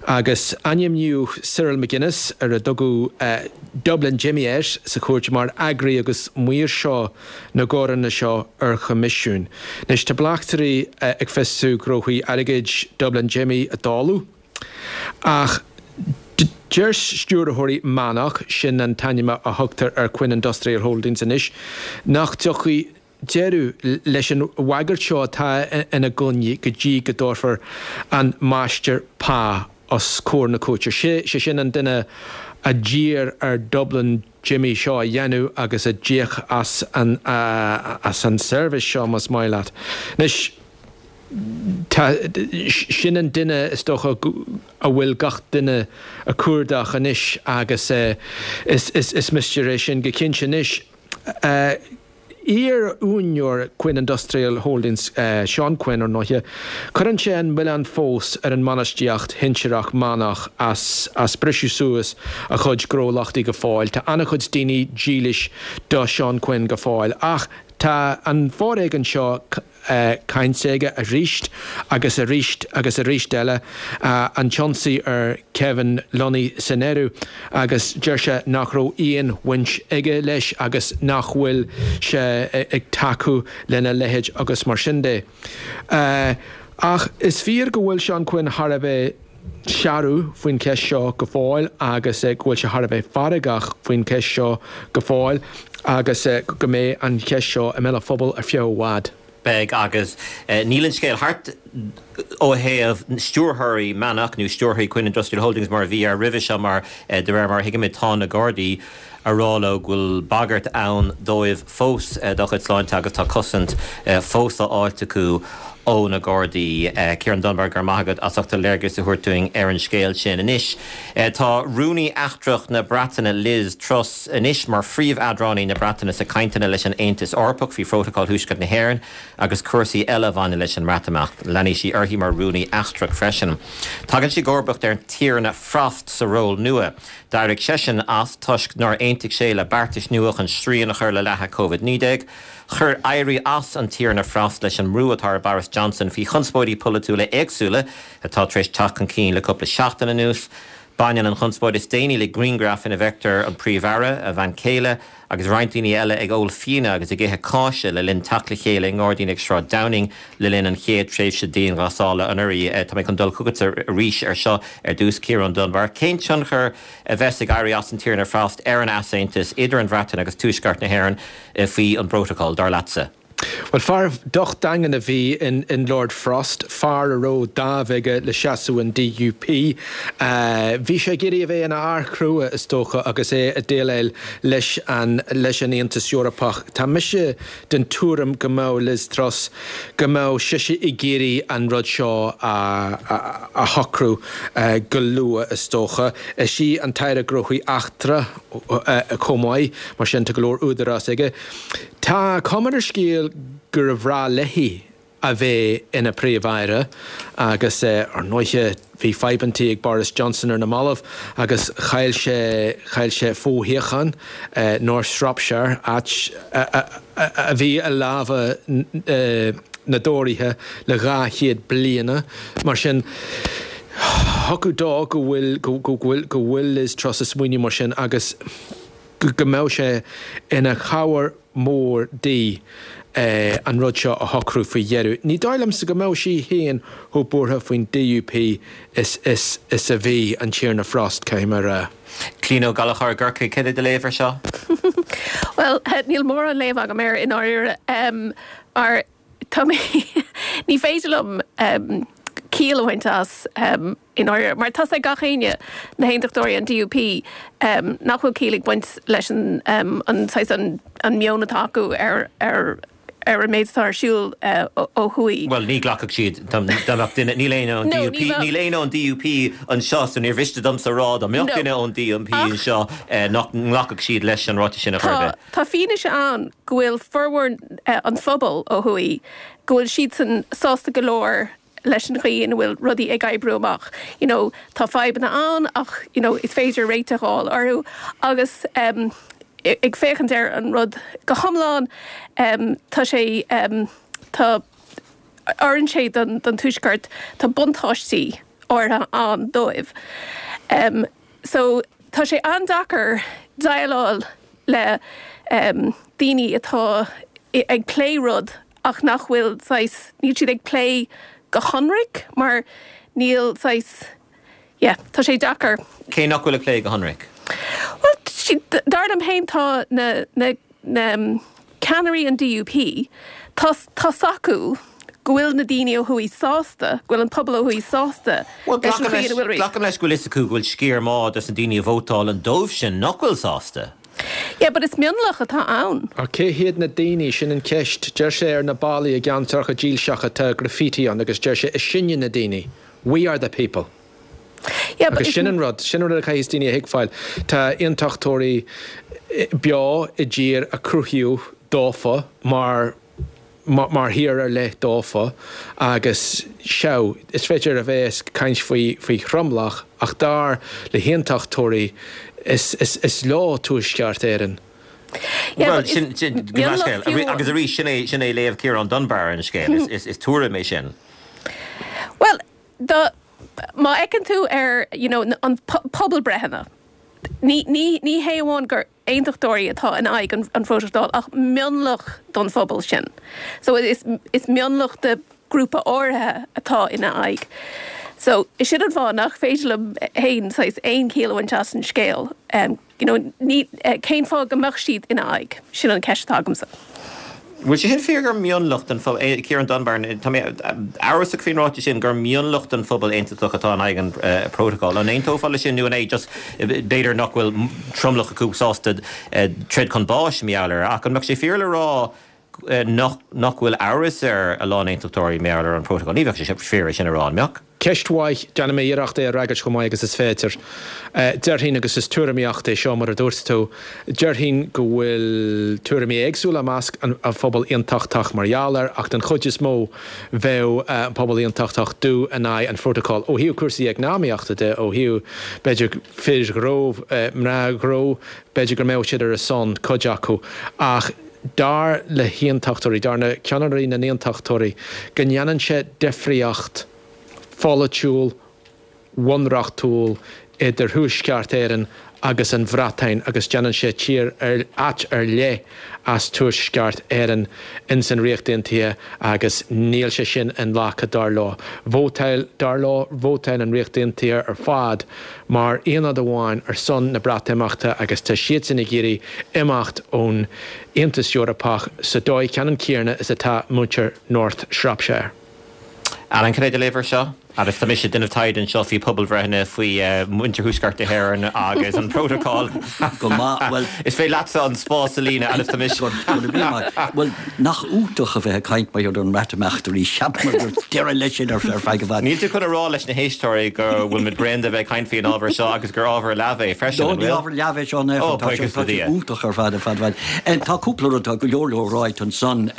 Agus ainmníodh Cyril McGuinness, ar a dtugadh Dublin Jimmy air sa chúirt, mar eagraí agus maoirseoir na gcoireanna seo ar choimisiún. Anois tá bleachtairí ag fiosrú gnóthaí airgid Dublin Jimmy a dáileadh, ach deir stiúrthóirí Mannok, sin an t-ainm a thugtar ar Quinn Industrial Holdings anois, nach dtiocfaidh deireadh leis an bhagairt seo atá ina gcoinne go dtí go dtabharfar an máistir pá os comhair na cúirte. Sé sin an duine a d'iarr ar Dublin Jimmy seo a dhéanamh agus a d'íoc as an as an seirbhís seo, más maith leat. Anois, tá, sin an duine is dócha a bhfuil gach duine a cuardach anois agus is is mistéir é sin go cinnte. Anois. Iar-úinéir Quinn Industrial Holdings, Seán Quinn, ar ndóighe, cuireann sé an milleán fós ar an mbainistíocht shinsearach Mannach as as briseadh suas a chuid gnólachtaí go fóill. Tá an-chuid daoine dílis do Seán Quinn go fóill ach tá an foréigean seo cainte aige arís agus arís agus arís eile, an t-ionsaí ar Kevin Lunny san áireamh, agus deir sé nach raibh aon bhaint aige leis agus nach bhfuil sé ag tacú lena leithéid agus mar sin de. Ach is fíor go bhfuil Seán Quinn thar a bheith searbh faoin cheist seo go fóill agus go bhfuil sé thar a bheith feargach faoin cheist seo go fóill agus go mbeidh an cheist seo i mbéal an phobail ar feadh i bhfad. Beidh agus níl an scéal thart ó thaobh stiúrthóirí Mannach nó stiúrthóirí Quinn Industrial Holdings mar a bhí air roimhe seo mar de réir mar a thuigimid tá na Gardaí a rá leo go bhfuil bagairt ann dóibh fós dá gcuid sláinte agus tá cosaint fós á fháilt acu ó na Gardaí. Ciarán Dunbar, go raibh maith agat as ucht do léargas a thabhairt dúinn ar an scéal sin. Anois, tá Rúnaí Eachtrach na Breataine Liz Truss anois mar phríomh-eadránaí na Breataine sa cainteanna leis an Aontas Eorpach faoi Phrótacal Thuaisceart na hÉireann agus cúrsaí eile a bhaineann leis an mBreatimeacht. Leanfaidh sí uirthi mar Rúnaí Eachtrach freisin. Tagann sí i gcomharbacht ar an Tiarna Frost sa ról nua. D'éirigh seisean as toisc nár aontaigh sé le beartais nua chun srian a chur le leathadh Covid-19. Chuir éirí as an Tiarna Frost leis an mbrú atá ar Boris Johnson faoi chonspóidí polaitiúla éagsúla atá tar éis teacht chun cinn le cúpla seachtain anuas. Baineann an chonspóid is déanaí le grianghraf ina bhfeictear an Príomh-Aire, a bhean chéile agus roinnt daoine eile ag ól fíona agus ag ithe cáise le linn teacht le chéile i ngairdín ag Sráid Downing le linn an chéad tréimhse dianghlasála anuraidh. Tá mé chun dul chugatsa arís ar seo ar dtús, Ciarán Dunbar. Cén tionchar a bheas ag éirí as an Tiarna Frost ar an easaontas idir an Bhreatain agus Tuaisceart na hÉireann faoi an bprótacal, dar leatsa? Bhuel, fear docht daingean a bhí in Lord Frost, fear a raibh dáimh aige le seasamh an DUP. Bhí sé ag iarraidh a bheith ina fhear crua, is dócha, agus é ag déileáil leis an leis an Aontas Eorpach. Tá mise den tuairim go mbeadh Liz Truss, go mbeadh sise ag iarraidh an rud seo a shocrú go luath, is dócha. Is í an tAire Gnóthaí Eachtracha chomh maith, mar sin tá go leor údarás aige. Tá cuma ar an scéal gur bhreá léi a bheith ina Príomh-Aire agus, ar ndóighe, bhí fadhbantaí ag Boris Johnson ar na mallaibh agus chaill sé, chaill sé foshuíochán, North Shropshire, áit a bhí i lámha na dTóraithe le 200 bliana. Mar sin, thiocfadh dó go bhfuil, go bhfuil, go bhfuil Liz Truss ag smaoineamh mar sin agus go mbeadh sé ina chabhair mhór di an rud seo a shocrú faoi dheireadh. Ní dóigh liomsa go mbeadh sí féin chomh buartha faoin DUP is is is a bhí an Tiarna Frost, caithfidh mé a rá. Clíona Ó Gallchóir i gCorcaigh, céard é do léamh ar seo? Bhuel, níl mórán léamh agam air i ndáiríre, mar tá mé, ní féidir liom ciall a bhaint as i ndáiríre, mar tá's ag gach éinne, na hAontachtóirí, an DUP, nach bhfuil ciall ag baint leis an an saghas an an meon atá acu ar ar ar an méid atá ar siúl ó thuaidh. Bhuel, ní ghlacfadh siad, dá mbeadh duine, níl éinne ón DUP, níl éinne ón DUP anseo, so níor mhiste domsa a rá dá mbeadh duine ón DUP anseo nach nglacfadh siad leis an ráiteas sin ar chor ar bith. Tá fianaise ann go bhfuil formhór an phobail ó thuaidh, go bhfuil siadsan sásta go leor leis an chaoi ina bhfuil rudaí ag oibriú amach. You know, tá fadhbanna ann ach, you know, is féidir réiteach a fháil orthu agus em ag féachaint ar an rud go hiomlán em tá sé em tá oireann sé don don Tuaisceart, tá buntáistí áirithe ann dóibh. Em so tá sé an-deacair déileáil le em daoine atá ag plé rud ach nach bhfuil saghas, níl siad ag plé go hionraic mar níl saghas, yeah, tá sé deacair. Cé nach bhfuil ag plé go hionraic? Bhuel, dar liom féin tá na, na, na ceannairí an DUP, tá, tá's acu go bhfuil na daoine ó thuaidh sásta, go bhfuil an pobal ó thuaidh sásta leis an chaoi ina bhfuil. Glacaim leis go bhfuil fhios acu go bhfuil sciar maith dos na daoine a vótálann dóibh sin nach bhfuil sásta. Yeah, but is mionlach atá ann. Ach cé hiad na daoine? Sin an cheist. Deir sé ar na ballaí i gceantracha dílseacha tá graffiti ann agus deir sé is sinne na daoine. We are the people. Yeah, but Agus sin an rud, sin an rud a chaithfidh daoine a thuigbheáil. Tá aontachtóirí beo i dtír a cruthaíodh. dófa mar mar thír ar leith dófa agus sea, is féidir a bheith ag caint faoi faoi thromlach ach dar le haontachtóirí is is is leo Tuaisceart Éireann. Bhuel, sin sin mionlach fiú. Agus arís, sin é sin é léamh Ciarán Dunbar ar an scéal. Is is is tuairim é sin. Bhuel, dá má fheiceann tú ar you know an pobalbreitheanna, ní ní ní hé amháin gur aontachtóirí atá in aghaidh an phrótacail ach mionlach don phobal sin. So is is mionlach de grúpa áirithe atá ina aghaidh. So sin an fáth nach féidir liom féin saghas aon chiall a bhaint as an scéal. You know, ní, cén fáth go mbeadh siad ina aghaidh? Sin an ceist atá agamsa. Bhfuil sé sin fíor gur mionlach den phobal, Ciarán Dunbar, tá mé amhrasach faoin ráiteas sin, gur mionlach den phobal aontachtach atá in aghaidh an prótacail. An aontófá leis sin nó an é just b'fhéidir nach bhfuil tromlach acu sásta troid chun báis mar gheall air ach an mbeadh sé fíor le rá nach nach bhfuil amhras ar a lán aontachtóirí mar gheall ar an prótacal? Ní bheadh sé fíor é sin a rá, an mbeadh? Ceist mhaith. Déanfaidh mé iarracht é a fhreagairt chomh maith agus is féidir. Déarfainn, agus is tuairimíocht é seo mar a dúirt tú, déarfainn go bhfuil tuairimí éagsúla i measc an phobail aontachtach mar gheall air ach den chuid is mó bheadh an pobal aontachtach dubh in aghaidh an phrótacail ó thaobh cúrsaí eacnamaíochta de, ó thaobh b'fhéidir fir ghnó, mná gnó, b'fhéidir go mbeadh siad ar a son, cuid acu, ach dar le haontachtóirí, dar le ceannairí na n-aontachtóirí, go ndéanann sé difríocht pholaitiúil, bhunreachtúil idir Thuaisceart Éireann agus an Bhreatain agus déanann sé tír ar, áit ar leith as Tuaisceart Éireann ins an Ríocht Aontaithe agus níl sé sin inghlactha dar leo. Vótáil, dar leo, vótáil an Ríocht Aontaithe ar fad mar aonad amháin ar son na Breatimeachta agus tá siadsan ag iarraidh imeacht ón Aontas Eorpach sa dóigh ceannann céanna is atá muintir North Shropshire. Alan, cad é do léamh air seo? Agus tá mise ag déanamh taighde anseo faoi pobalbhreitheanna faoi mhuintir Thuaisceart na hÉireann agus an prótacal. Go maith, bhuel. Is féidir leatsa an spás a líonadh agus tá mise. Go raibh míle maith. Bhuel, nach iontach a bheith ag caint mar gheall ar an mBreatimeacht arís. Cheap mé go raibh deireadh leis sin ar feadh i bhfad. Níl tú chun a rá leis na héisteoirí go bhfuil muid bréan de bheith ag caint faoi an ábhar seo agus gur ábhar leamh é freisin, an bhfuil? No, ní ábhar leamh é seo in aon chor. Tá sé iontach ar fad, ar fad, ar fad. Tá cúpla rud, tá go leor leor ráite ansan.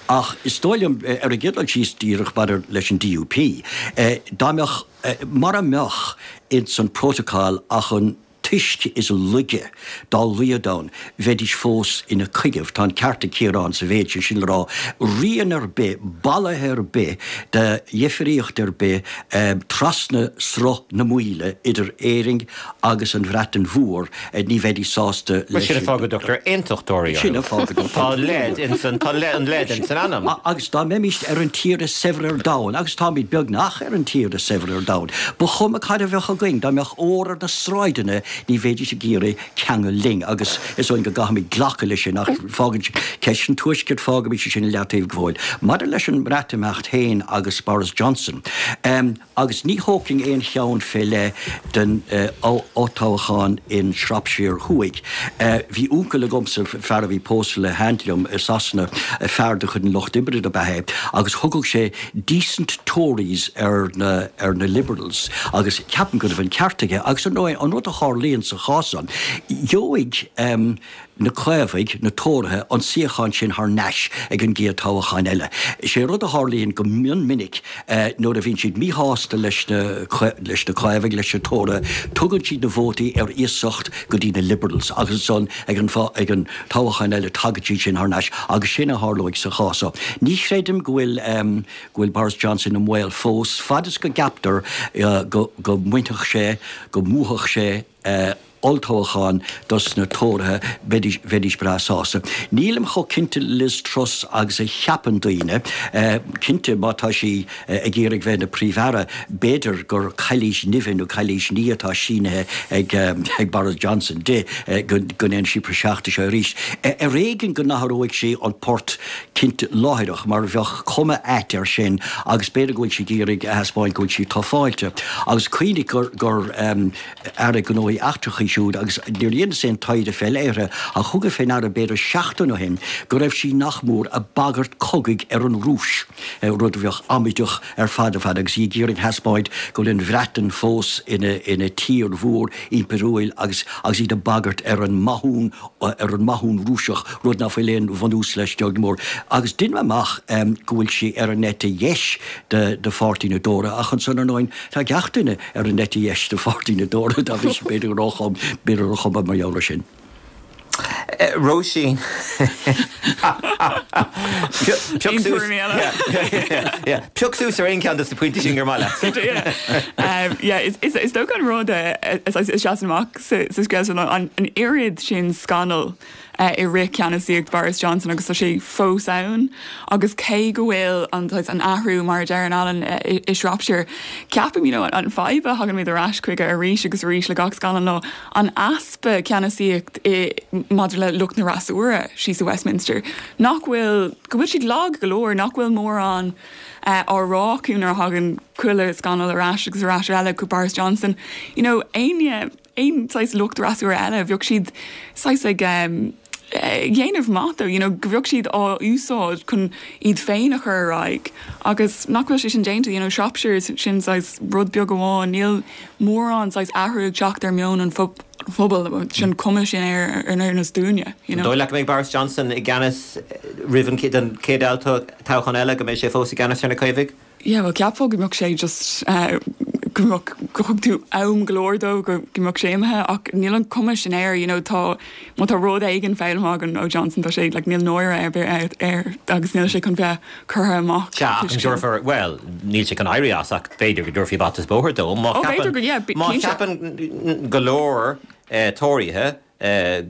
Ach is dóigh liom, ar an gcéad dul síos, díreach maidir leis an DUP, dá mbeadh, mura mbeadh ins an Protocol ach an t-uisce is laige dá laghad ann, bheidís fós ina coinne. Tá an ceart ag Ciarán sa mhéid sin, sin le rá, rian ar bith, bolaithe ar bith de dhifríocht ar bith trasna Sruth na Maoile idir Éirinn agus an Bhreatain Mhór, ní bheidís sásta leis. Sin an fáth go dtugtar aontachtóirí orthu. Sin an fáth go dtugtar. Tá leid ins an, tá an leid ins an ainm. Agus dá mbeimíst ar an tír is saibhre ar domhan, agus táimid beagnach ar an tír is saibhre ar domhan, ba chuma cad a bheadh againn, dá mbeadh ór ar na sráideanna, ní bheidís ag iarraidh ceangal linn. Agus is dóigh go gcaithfimid glacadh leis sin, ach fágann ceist an Tuaiscirt, fágaimis sin i leataobh go fóill. Maidir leis an mBreatimeacht féin agus Boris Johnson, Agus ní thógfainn aon cheann fé leith den olltoghchán in Shropshire Thuaidh. Bhí uncail agamsa, fear a bhí pósta le haint liom i Sasana, fear de chuid an Lucht Oibre dob ea é, agus thugadh sé decent Tories ar na ar na Liberals, agus ceapaim go raibh an ceart aige. Agus ar ndóigh, an rud a tharlaíonn sa chás san, gheobhaidh. na Caomhaigh, na Tóraithe, an suíochán sin thar n-ais ag an gcéad toghchán eile. Is é rud a tharlaíonn go mion minic nuair a bhíonn siad míshásta leis na leis na Caomhaigh, leis na Tóraithe, tugann siad na vótaí ar iasacht go dtí na Liberals agus ansan ag an ag an toghchán eile tagann siad sin thar n-ais agus sin a tharlóidh sa chás seo. Ní chreidim go bhfuil go bhfuil Boris Johnson i mbaol fós, fad is go gceaptar go go mbainfeadh sé, go mbuafadh sé olltoghchán dos na Tóraithe, bheidís, bheidís breá sásta. Nílim chomh cinnte Liz Truss agus a cheapann daoine. Cinnte, má tá sí ag iarraidh bheith ina Príomh-Aire, b'fhéidir gur cailís nimhe nó cailís ní atá sínithe ag, ag Boris Johnson di go, go ndéanfaidh sí praiseach de seo arís. Ar éigean go n-athróidh sí an port cinnte láithreach mar bheadh cuma ait air sin agus b'fhéidir go bhfuil sí ag iarraidh a thaispeáint go bhfuil sí tufáilte. Agus cuimhnigh gur, gur, Aire Gnóthaí Eachtracha í. siúd agus níor dheineas aon taighde fé leith uirthi ach thugas fé ndeara b'fhéidir seachtain ó shin go raibh sí nach mór ag bagairt cogaidh ar an Rúis, rud a bheadh amaideach ar fad ar fad agus í ag iarraidh thaispeáint go bhfuil an Bhreatain fós ina ina tír mhór impiriúil agus agus iad ag bagairt ar an mathún ar an mathún Rúiseach, rud ná fuil aon bhunús leis beag ná mór. Agus deinim amach go bhfuil sí ar an eite dheis de de pháirtí na dTóraithe ach ansan ar ndóin tá gach duine ar an eite dheis de pháirtí na dTóraithe dá bhrí sin b'fhéidir gur b'fhéidir gur chuma mar gheall ar sin. Róisín. Pioc suas Pioc suas ar aon cheann de na pointí sin gur maith leat. Is dócha an rud a sheasann amach sa scéal seo ná an oiread sin scannal i rith ceannasaíocht Boris Johnson agus tá sé fós ann agus cé go bhfuil an an athrú mar a deireann Alan i Shropshire ceapaim you know an fadhb a thagann muid ar ais chuige arís agus arís le gach scannal ná an easpa ceannasaíocht i maidir le lucht na fhreasúra síos i Westminster nach bhfuil go bhfuil siad lag go leor nach bhfuil mórán á rá acu nuair a thagann chuile scannal ar ais agus ar ais eile chuig Boris Johnson you know éinne aon saghas lucht fhreasúra eile, bheadh siad saghas ag dhéanamh maith dó, you know, go bheadh siad á úsáid chun iad féin a chur ar aghaidh agus nach bhfuil sé sin déanta, you know, Shropshire, sin saghas rud beag amháin, níl mórán saghas athrú ag teacht ar meon an phobail, sin cuma sin air ar nós dúinne, you know. An dóigh leat go mbeidh Boris Johnson i gceannas roimh an chéad toghchán eile, go mbeidh sé fós i gceannas ar na Caomhaigh? Yeah, bhuel cheapfá go mbeadh sé just go mbeadh, go thug tú am go leor dó go mbeadh sé imithe ach níl an cuma sin air, you know, tá, má tá rud éigin foghlamtha againn ó Johnson tá sé, like, níl náire ar bith air agus níl sé chun bheith curtha amach. Sea, ach an dtabharfar, bhuel, níl sé chun éirí as ach b'fhéidir go dtabharfaí bata is bóthar dó má Oh, b'fhéidir go, yeah, má cinnte. cheapann go leor Tóraithe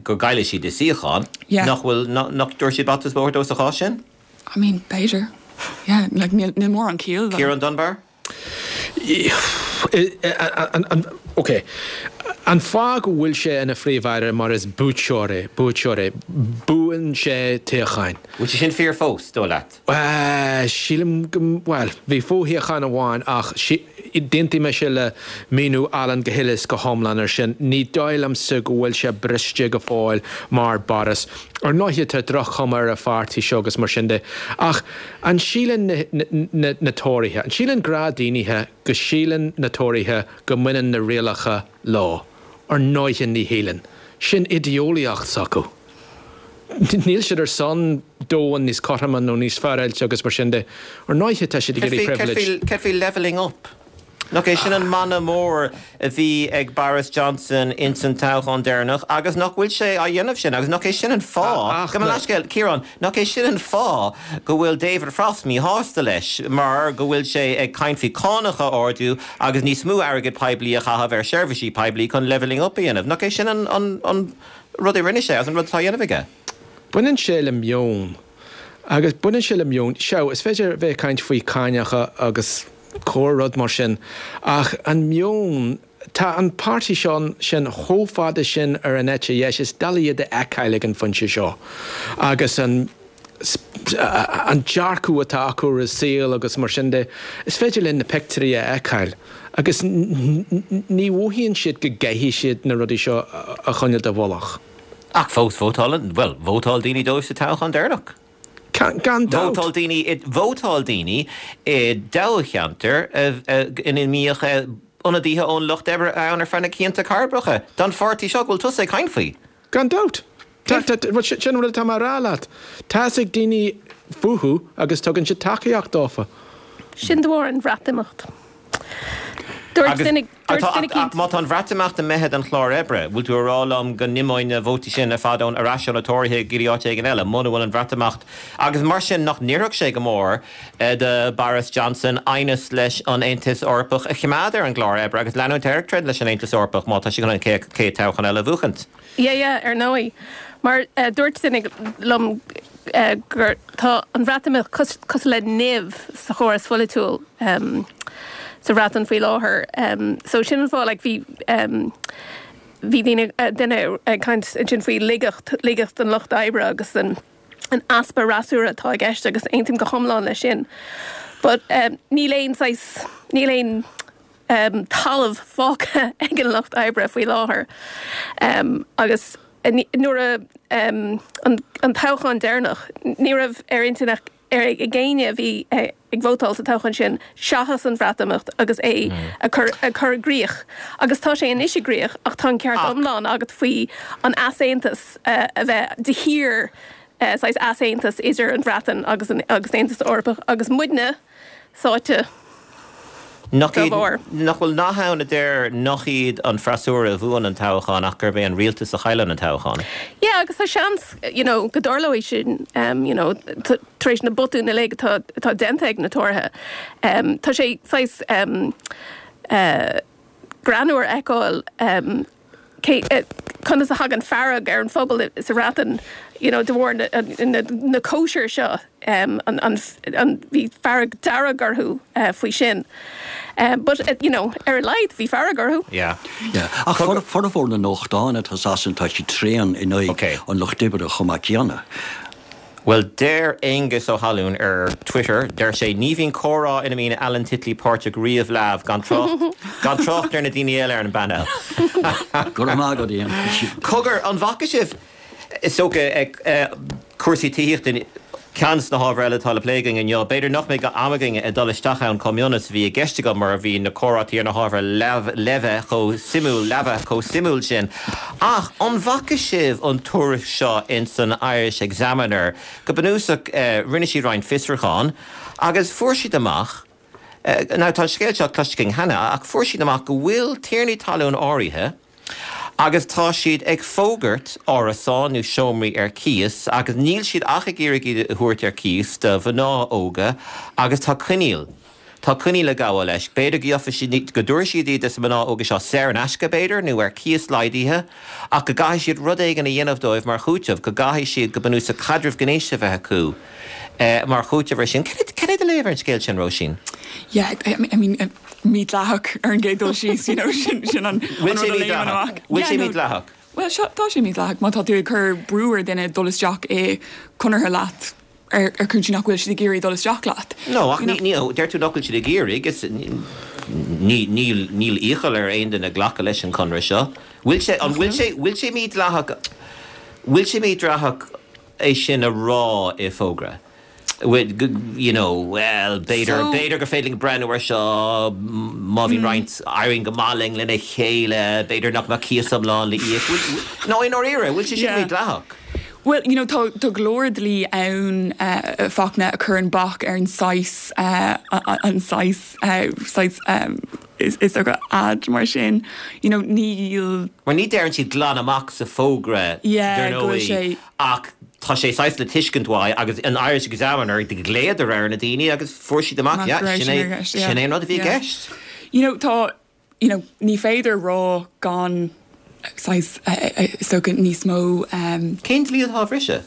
go gcaillfidh siad a suíochán, Yeah. nach bhfuil, nach dtabharfaidh siad bata is bóthar dó sa chás sin? I mean, b'fhéidir. Yeah, like, níl, níl mórán ciall le. Ciarán Dunbar? Ok. An fáth go bhfuil sé ina Phríomh-Aire mar is buaiteoir é, buaiteoir é. Buann sé toghcháin. Bhfuil sé sin fíor fós, dóigh leat? Sílim go, bhuel, bhí fo-shuíochán amháin ach d'aontaigh mise le míniú Alan go huile is go hiomlán ar sin. Ní dóigh liomsa go bhfuil sé briste go fóill mar Boris. Ar ndóighe tá droch-chuma ar a pháirtí seo agus mar sin de ach an síleann na Tóraithe, an síleann gnáthdhaoine go síleann na Tóraithe go mbaineann na rialacha leo? Ar ndóighe ní shíleann. Sin idé-eolaíocht s'acu. Níl siad ar son domhan níos cothroime nó níos féaráilte agus mar sin de. Ar ndóighe tá siad ag iarraidh privilege. Céard faoi levelling up? Nach é sin an mana mór a bhí ag Boris Johnson ins an toghchán deireanach agus nach bhfuil sé á dhéanamh sin agus nach é sin an fáth, gabh mo leithscéal, Ciarán, nach é sin an fáth go bhfuil David Frost míshásta leis mar go bhfuil sé ag caint faoi cánacha a ardú agus níos mó airgead poiblí a chaitheamh ar sheirbhísí poiblí chun levelling up a dhéanamh. Nach é sin an rud a rinne sé agus an rud atá á dhéanamh aige? Baineann sé le meon. Agus baineann sé le meon. Sea, is féidir bheith ag caint faoi cáineacha agus corr rud mar sin, ach an meon, tá an páirtí seo sin chomh fada sin ar an eite dheis, is doiligh iad a fheiceáil ag an phointe seo. Agus an an dearcadh atá acu ar an saol agus mar sin de, is féidir linn na pictiúirí a fheiceáil agus ní mhothaíonn siad go gcaithfidh siad na rudaí seo a choinneáil i bhfolach. Ach fós vótálann, bhuel, vótáil daoine dóibh sa toghchán deireanach. Gan dabht. Vótáil daoine, vótáil daoine i dtoghcheantar ina mbíodh ionadaithe ón Lucht Oibre ann ar feadh na cianta cairbreacha don pháirtí seo go bhfuil tusa ag caint faoi. Gan dabht. Sin an rud atá mé a rá leat. Tá's ag daoine fúthu agus tugann siad tacaíocht dófa. Sin de bharr an Bhreatimeacht. Dúirt duine eicínt. Má tá an Bhreatimeacht imithe den chlár oibre, bhfuil tú a rá liom go n-imeoidh na vótaí sin ar fad ón ar ais ó na Tóraithe go dtí áit éigin eile, muna bhfuil an Bhreatimeacht agus mar sin nach n-oirfeadh sé go mór do Boris Johnson aighneas leis an Aontas Eorpach a choimeád ar an gclár oibre agus leanúint air ag troid leis an Aontas Eorpach má tá sé chun an chéad toghchán eile a bhuachaint? Yeah, yeah, ar ndóigh. Mar dúirt duine liom gur tá an Bhreatimeacht cosúil le nimh sa chóras pholaitiúil sa Bhreatain faoi láthair. So sin an fáth like bhí bhí daoine duine ag caint ansin faoi laigeacht, laigeacht an lucht oibre agus an an easpa fhreasúra atá i gceist agus aontaím go hiomlán leis sin. But níl aon saghas, níl aon. talamh fágtha ag an lucht oibre faoi láthair agus nuair a an toghchán deireanach ní raibh ar intinn ag éinne a bhí ag vótáil sa toghchán sin seachas an Bhreatimeacht agus é a chur a chur i gcrích agus tá sé anois i gcrích ach tá an ceart iomlán agat faoi an easaontas a bheith de shíor saghas easaontas idir an Bhreatain agus an agus an Aontas Eorpach agus muidne sáite Nach dá iad, bharr. nach bhfuil nath ann a deir nach iad an freasúra a bhuann an toghchán ach gurb é an rialtas a chailleann an toghchán. Yeah agus tá seans you know go dtarlóidh sin you know tar éis na botúin uilig atá atá déanta ag na Tóraithe. Tá sé saghas eh greannmhar a fheiceáil cé conas a thagann fearg ar an phobal sa Bhreatain you know de bharr na na na cóisir seo an an an bhí fearg dearg orthu faoi sin. But you know ar a laghad bhí fearg orthu. Yeah. Yeah. Ach formhór na nuachtán atá i Sasana tá siad tréan in aghaidh an lucht oibre chomh maith céanna. Bhuel, deir Aengus Ó hAlúin ar Twitter, deir sé, ní bhíonn comhrá ina mbíonn Alan Titley páirteach riamh leamh, gan trácht, gan trácht ar na daoine eile ar an bpainéal. Go raibh maith agat, Ian. Cogar, an bhfaca sibh, is dócha, cúrsaí tithíochta, ceann de na hábhair eile atá le plé againn inniu. B'fhéidir nach mbeidh am againn ag dul isteach ann chomh mion is a bhí i gceist agam mar bhí na comhráití ar na hábhair leamh chomh suimiúil, leamh chomh suimiúil sin. Ach an bhfaca sibh an tuairisc seo ins an Irish Examiner? Go bunúsach, rinne siad roinnt fiosrúchán agus fuair siad amach, now tá an scéal seo cloiste againn cheana, ach fuair siad amach go bhfuil tiarnaí talún áirithe agus tá siad ag fógairt árasán nó seomraí ar cíos agus níl siad ach ag iarraidh iad a thabhairt ar cíos do mhná óga agus tá coinníoll Tá coinníoll ag gabháil leis. B'fhéidir go gheobhaidh siad, go dtabharfaidh siad iad dos na mná óga seo saor in aisce, b'fhéidir, nó ar cíos laghdaithe, ach go gcaithfidh siad rud éigin a dhéanamh dóibh mar chúiteamh, go gcaithfidh siad, go bunúsach, caidreamh gnéis a bheith acu mar chúiteamh ar sin. Cad é do léamh ar an scéal sin, Róisín? Yeah, I mean, mídhleathach ar an gcéad dul síos, you know, sin, sin an, an rud a léimeann amach. Bhfuil sé mídhleathach? Bhuel, seo, tá sé mídhleathach má tá tú ag cur brú ar dhuine dul isteach i conartha leat ar ar cúinsí nach bhfuil siad ag iarraidh dul isteach leat. No, ach ní, ní, deir tú nach bhfuil siad ag iarraidh, is ní, níl, níl iachall ar aon duine glacadh leis an chonradh seo. Bhfuil sé, an bhfuil sé, bhfuil sé mídhleathach, bhfuil sé mídhleathach é sin a rá i bhfógra? You know, well, b'fhéidir, b'fhéidir gur féidir linn breathnú ar seo má bhíonn roinnt, éiríonn go maith linn lena chéile, b'fhéidir nach mbeadh cíos iomlán le íoc. No, i ndáiríre, bhfuil sé sin mídhleathach? Bhuel, you know, tá, tá go leor dlí ann, Fachtna, a chuireann bac ar an saghas, an saghas, saghas, is, is dócha ad mar sin. You know, níl. Mar ní deireann siad glan amach sa fógra, Yeah, dar go bhfuil ndóigh, sé. ach tá sé saghas le tuiscint uaidh agus an Irish Examiner, ghlaodar ar na daoine agus fuair siad amach, Amach yeah, go raibh sin sin é, ar gceist, yeah. sin é an rud a bhí i Yeah. gceist. You know, tá, you know, ní féidir rá gan saghas, is dócha, níos mó. Cén dlí atá á bhriseadh?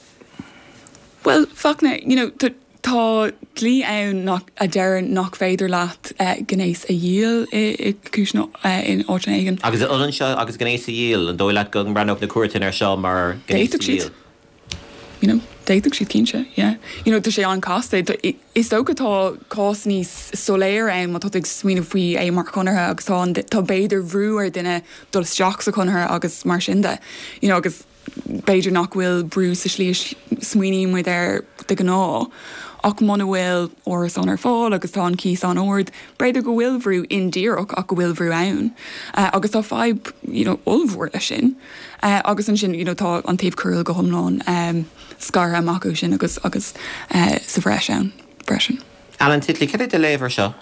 Bhuel, Fachtna, you know, tá dlí ann nach, a deireann nach féidir leat gnéas a dhíol i gcúiseanna, in áiteanna éigin. Agus an ionann seo agus gnéas a dhíol? An dóigh leat go mbreathnódh na cúirteanna air seo mar ghnéas a D'fhéadfadh siad. dhíol? You know, d'fhéadfadh siad cinnte, yeah. You know, tá sé an-chasta. Is dócha tá cás níos soiléire ann má tá tú ag smaoineamh faoi é mar chonartha agus tá an, tá b'fhéidir bhrú ar duine dul isteach sa chonartha agus mar sin de. You know, agus b'fhéidir nach bhfuil brú sa slí a smaoiníonn muid air de ghnáth ach muna bhfuil árasán ar fáil agus tá an cíos an-ard, b'fhéidir go bhfuil bhrú indíreach ach go bhfuil bhrú ann. Agus tá fadhb, you know, ollmhór leis sin. Agus ansin, you know, tá an taobh coiriúil go hiomlán scartha amach ó sin agus agus sa bhreis ann freisin. Alan Titley, cad é do léamh ar seo?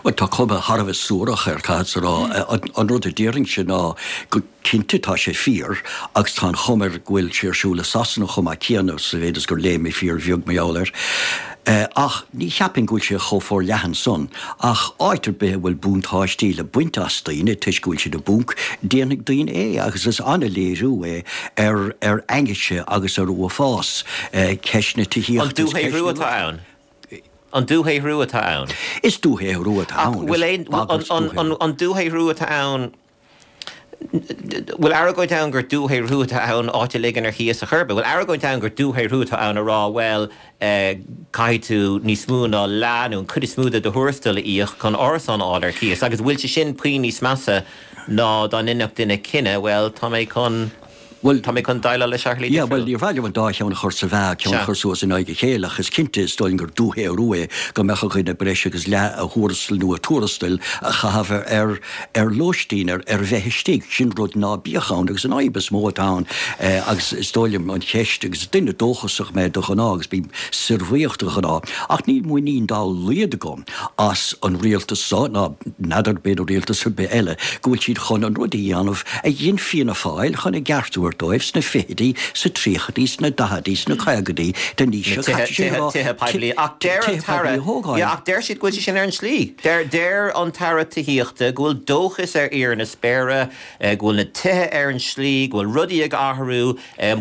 Bhuel, tá cuma thar a bheith suarach air, caithfeadsa a rá. An rud a déarfainnse ná go cinnte tá sé fíor agus tá an chuma air go bhfuil sé ar siúl i Sasana chomh maith céanna, sa mhéid is gur léigh mé fíor bheag mar gheall air. Ach ní cheapfainn go bhfuil sé chomh forleathan san. Ach áit ar bith a bhfuil buntáistí le baint as daoine toisc go bhfuil siad i bponc, déanfaidh daoine é agus is an-léiriú é ar ar ainnise agus ar uafás ceist na An tithíochta is ceist dúshaothrú na atá ann? An dúshaothrú atá ann. Is dúshaothrú atá Ach ann, bhfuil is aon, bagairt an, dúshaothrú. an dúshaothrú atá ann. Bhfuil argóint ann gur dúshaothrú atá ann áit a ligean ar chíos a chor ar bith? Bhfuil argóint ann gur dúshaothrú atá ann a rá, bhuel, caithfidh tú níos mó ná leath nó an chuid is mó de do thuarastal a íoc chun árasán a fháil ar cíos? Agus bhfuil sé sin puinn níos measa ná dá ndéanfadh duine cinneadh, bhuel, tá mé chun. Bhuel, tá mé chun déileáil le seo ar shlí Yeah, bhuel, difriúil. níor mhaith liom an dá cheann a chur sa mheá, ceann a Sea. chur suas in aghaidh a chéile, ach is cinnte, is dóigh liom gur dúshaothrú é go mbeadh ar dhuine breis agus leath a thuarastail nó a tuarastail a chaitheamh ar, ar, ar lóistín, ar, ar bheith istigh. Sin rud ná bíodh ann agus an fhadhb is mó atá ann, eh, agus is dóigh liom an cheist, agus is duine dóchasach mé de ghnáth agus bím saorbhuíoch de ghnáth, ach níl muinín dá laghad agam as an rialtas so, ná n'fheadar b'fhéidir rialtas ar bith eile, go bhfuil siad chun an rud a dhéanamh a dhein Fianna Fáil chun a gceart a thabhairt dóibh sna fichidí, sa tríochaidí, sna daichidí, sna caogaidí den aois seo caite, sin a rá, Tithe poiblí. Ach deir an tithe poiblí tAire, a thógáil. yeah, ach deir siad go bhfuil sé sin ar an tslí. Deir, deir an tAire Tithíochta go bhfuil dóchas ar fhíor na spéire, go bhfuil na tithe ar an slí, go bhfuil rudaí ag athrú,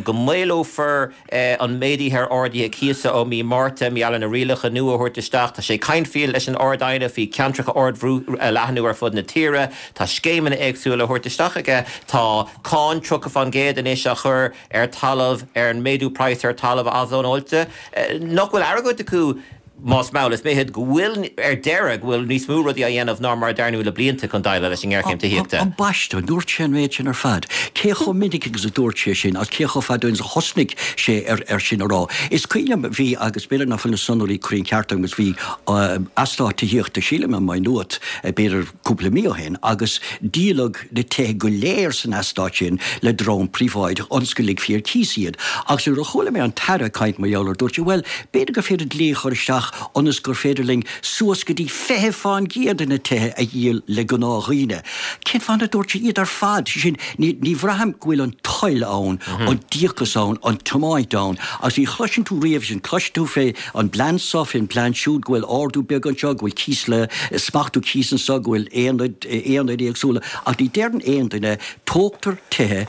go maolófar an méadaithe ar arduithe cíosa ó mí Márta, mar gheall ar na rialacha nua a thabhairt isteach. Tá sé ag caint faoi leis an Ard-Aighne faoi cheantracha ardbhrú a leathnú ar fud na tíre. Tá scéimeanna éagsúla a thabhairt isteach aige. Tá cáin 30% anois á chur ar talamh, ar an méadú praghas ar talamh athzónáilte. Nach bhfuil argóint acu más mall is mithid, go bhfuil, ar deireadh, go bhfuil níos mó rudaí á dhéanamh ná mar a dearnadh le blianta chun déileáil leis an ngéarchéim tithíochta. Ambaiste, an dúirt sé an méid sin ar fad? Cé chomh minic agus a dúirt sé sin agus cé chomh fada ó shin is a thosnaigh sé ar sin a rá? Is cuimhin liom, bhí, agus b'fhéidir nach bhfuil na sonraí cruinn ceart agam, agus bhí eastát tithíochta, sílim i Maigh Nuat, b'fhéidir cúpla mí ó shin, agus díoladh na tithe go léir san eastát sin le dream príobháideach ionas go ligfí ar cíos iad. Agus nuair a chuala mé an tAire ag caint mar gheall air, dúirt sé, bhuel, b'fhéidir gur féidir dlí a chur isteach ionas gur féidir linn suas go dtí 20% de na tithe a dhíol le gnáthdhaoine. Cén fáth nár dúirt sé iad ar fad? Sé sin, ní, ní bhraithim go bhfuil an toil ann, an díocas ann, an tiomáint ann. Agus ní chloiseann tú riamh sin. Cloiseann tú fé an bplean seo, fén bplean siúd, go bhfuil ardú beag anseo, go bhfuil cíos le, smachtú cíos anseo, go bhfuil aonaid, aonaid éagsúla, ach ní deireann aon duine, tógtar tithe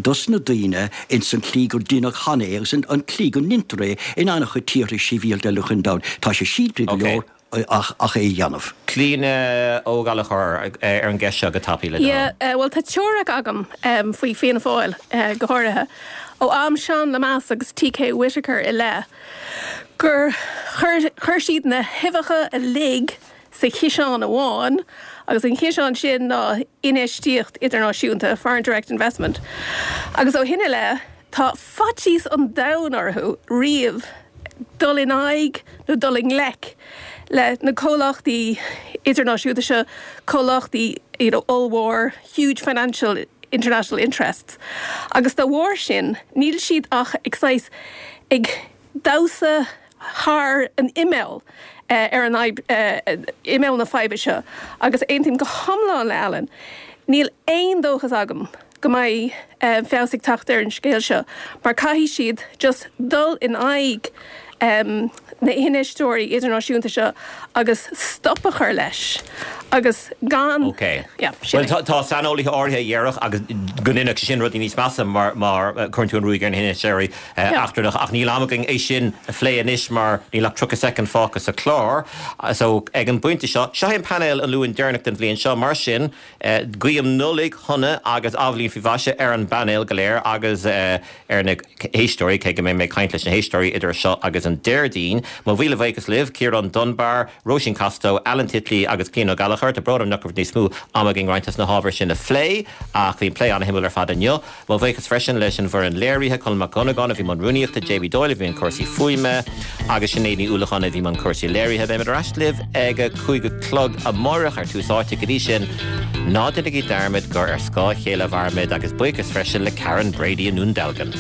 dos na daoine ins an tslí gur deineadh cheana é agus an tslí go ndeintear é in an-chuid tíortha sibhialta eile chun domhain. Tá sé simplí go leor ach ach é a dhéanamh. Clíona Ó Gallchóir ar an gceist seo go tapaidh le do thoil. Yeah, bhuel tá teoiric agam faoi Fianna Fáil go háirithe, ó am Seán Lemass agus TK Whitaker i leith, gur chuir chuir siad na huibheacha uilig sa chiseán amháin agus an ciseán sin ná infheistíocht idirnáisiúnta, foreign direct investment, agus ó shin i leith tá faitíos an domhain orthu riamh dul in aghaidh nó dul i ngleic le na comhlachtaí idirnáisiúnta seo, comhlachtaí you know ollmhór, huge financial international interests agus dá bharr sin níl siad ach ag saghas ag damhsa thar an imeall ar an fhadhb, imeall na faidhbe seo agus aontaím go hiomlán le Alan, níl aon dóchas agam go mbeidh feabhas ag teacht ar an scéal seo mar caithfidh siad just dul in aghaidh na hinfheisteoirí idirnáisiúnta seo agus stop a chur leis agus gan Ok. yeah, sin Bhuel, é. tá saineolaithe áirithe a dhéarfadh agus go ndéanfadh sé sin rudaí níos measa mar mar cuireann tú an ruaig ar na hinfheisteoirí eachtrannach ach níl am againn é sin a phlé anois mar níl ach 30 soicind fágtha sa chlár. So ag an bpointe seo, seo é an painéal an Luain deireanach den bhliain seo, mar sin guím Nollaig shona agus athbhliain faoi mhaise ar an bpainéal go léir agus ar na héisteoirí, cé go mbeidh mé ag caint leis na héisteoirí idir seo agus an Déardaoin. Mo mhíle bhuíochas libh, Ciarán Dunbar, Róisín Costello, Alan Titley agus Clíona Ó Gallchóir. Tá brón orm nach raibh níos mó ama againn roinnt des na hábhair sin a phlé ach bhí an plé an-shuimiúil ar fad inniu. Mo bhuíochas freisin leis an bhfoireann léirithe, Colm Mac Dhonnagáin a bhí i mbun rúnaíochta, JB Doyle a bhí i mbun cúrsaí fuaime agus Sinéad Ní Uallacháin a bhí i mbun cúrsaí léirithe. Beimid ar ais libh ag a 5 a chlog amárach ar Tús Áite. Go dtí sin, ná déanaigí dearmad gur ar scáth a chéile a mhairimid agus buíochas freisin le Karen Brady i nDún Dealgan.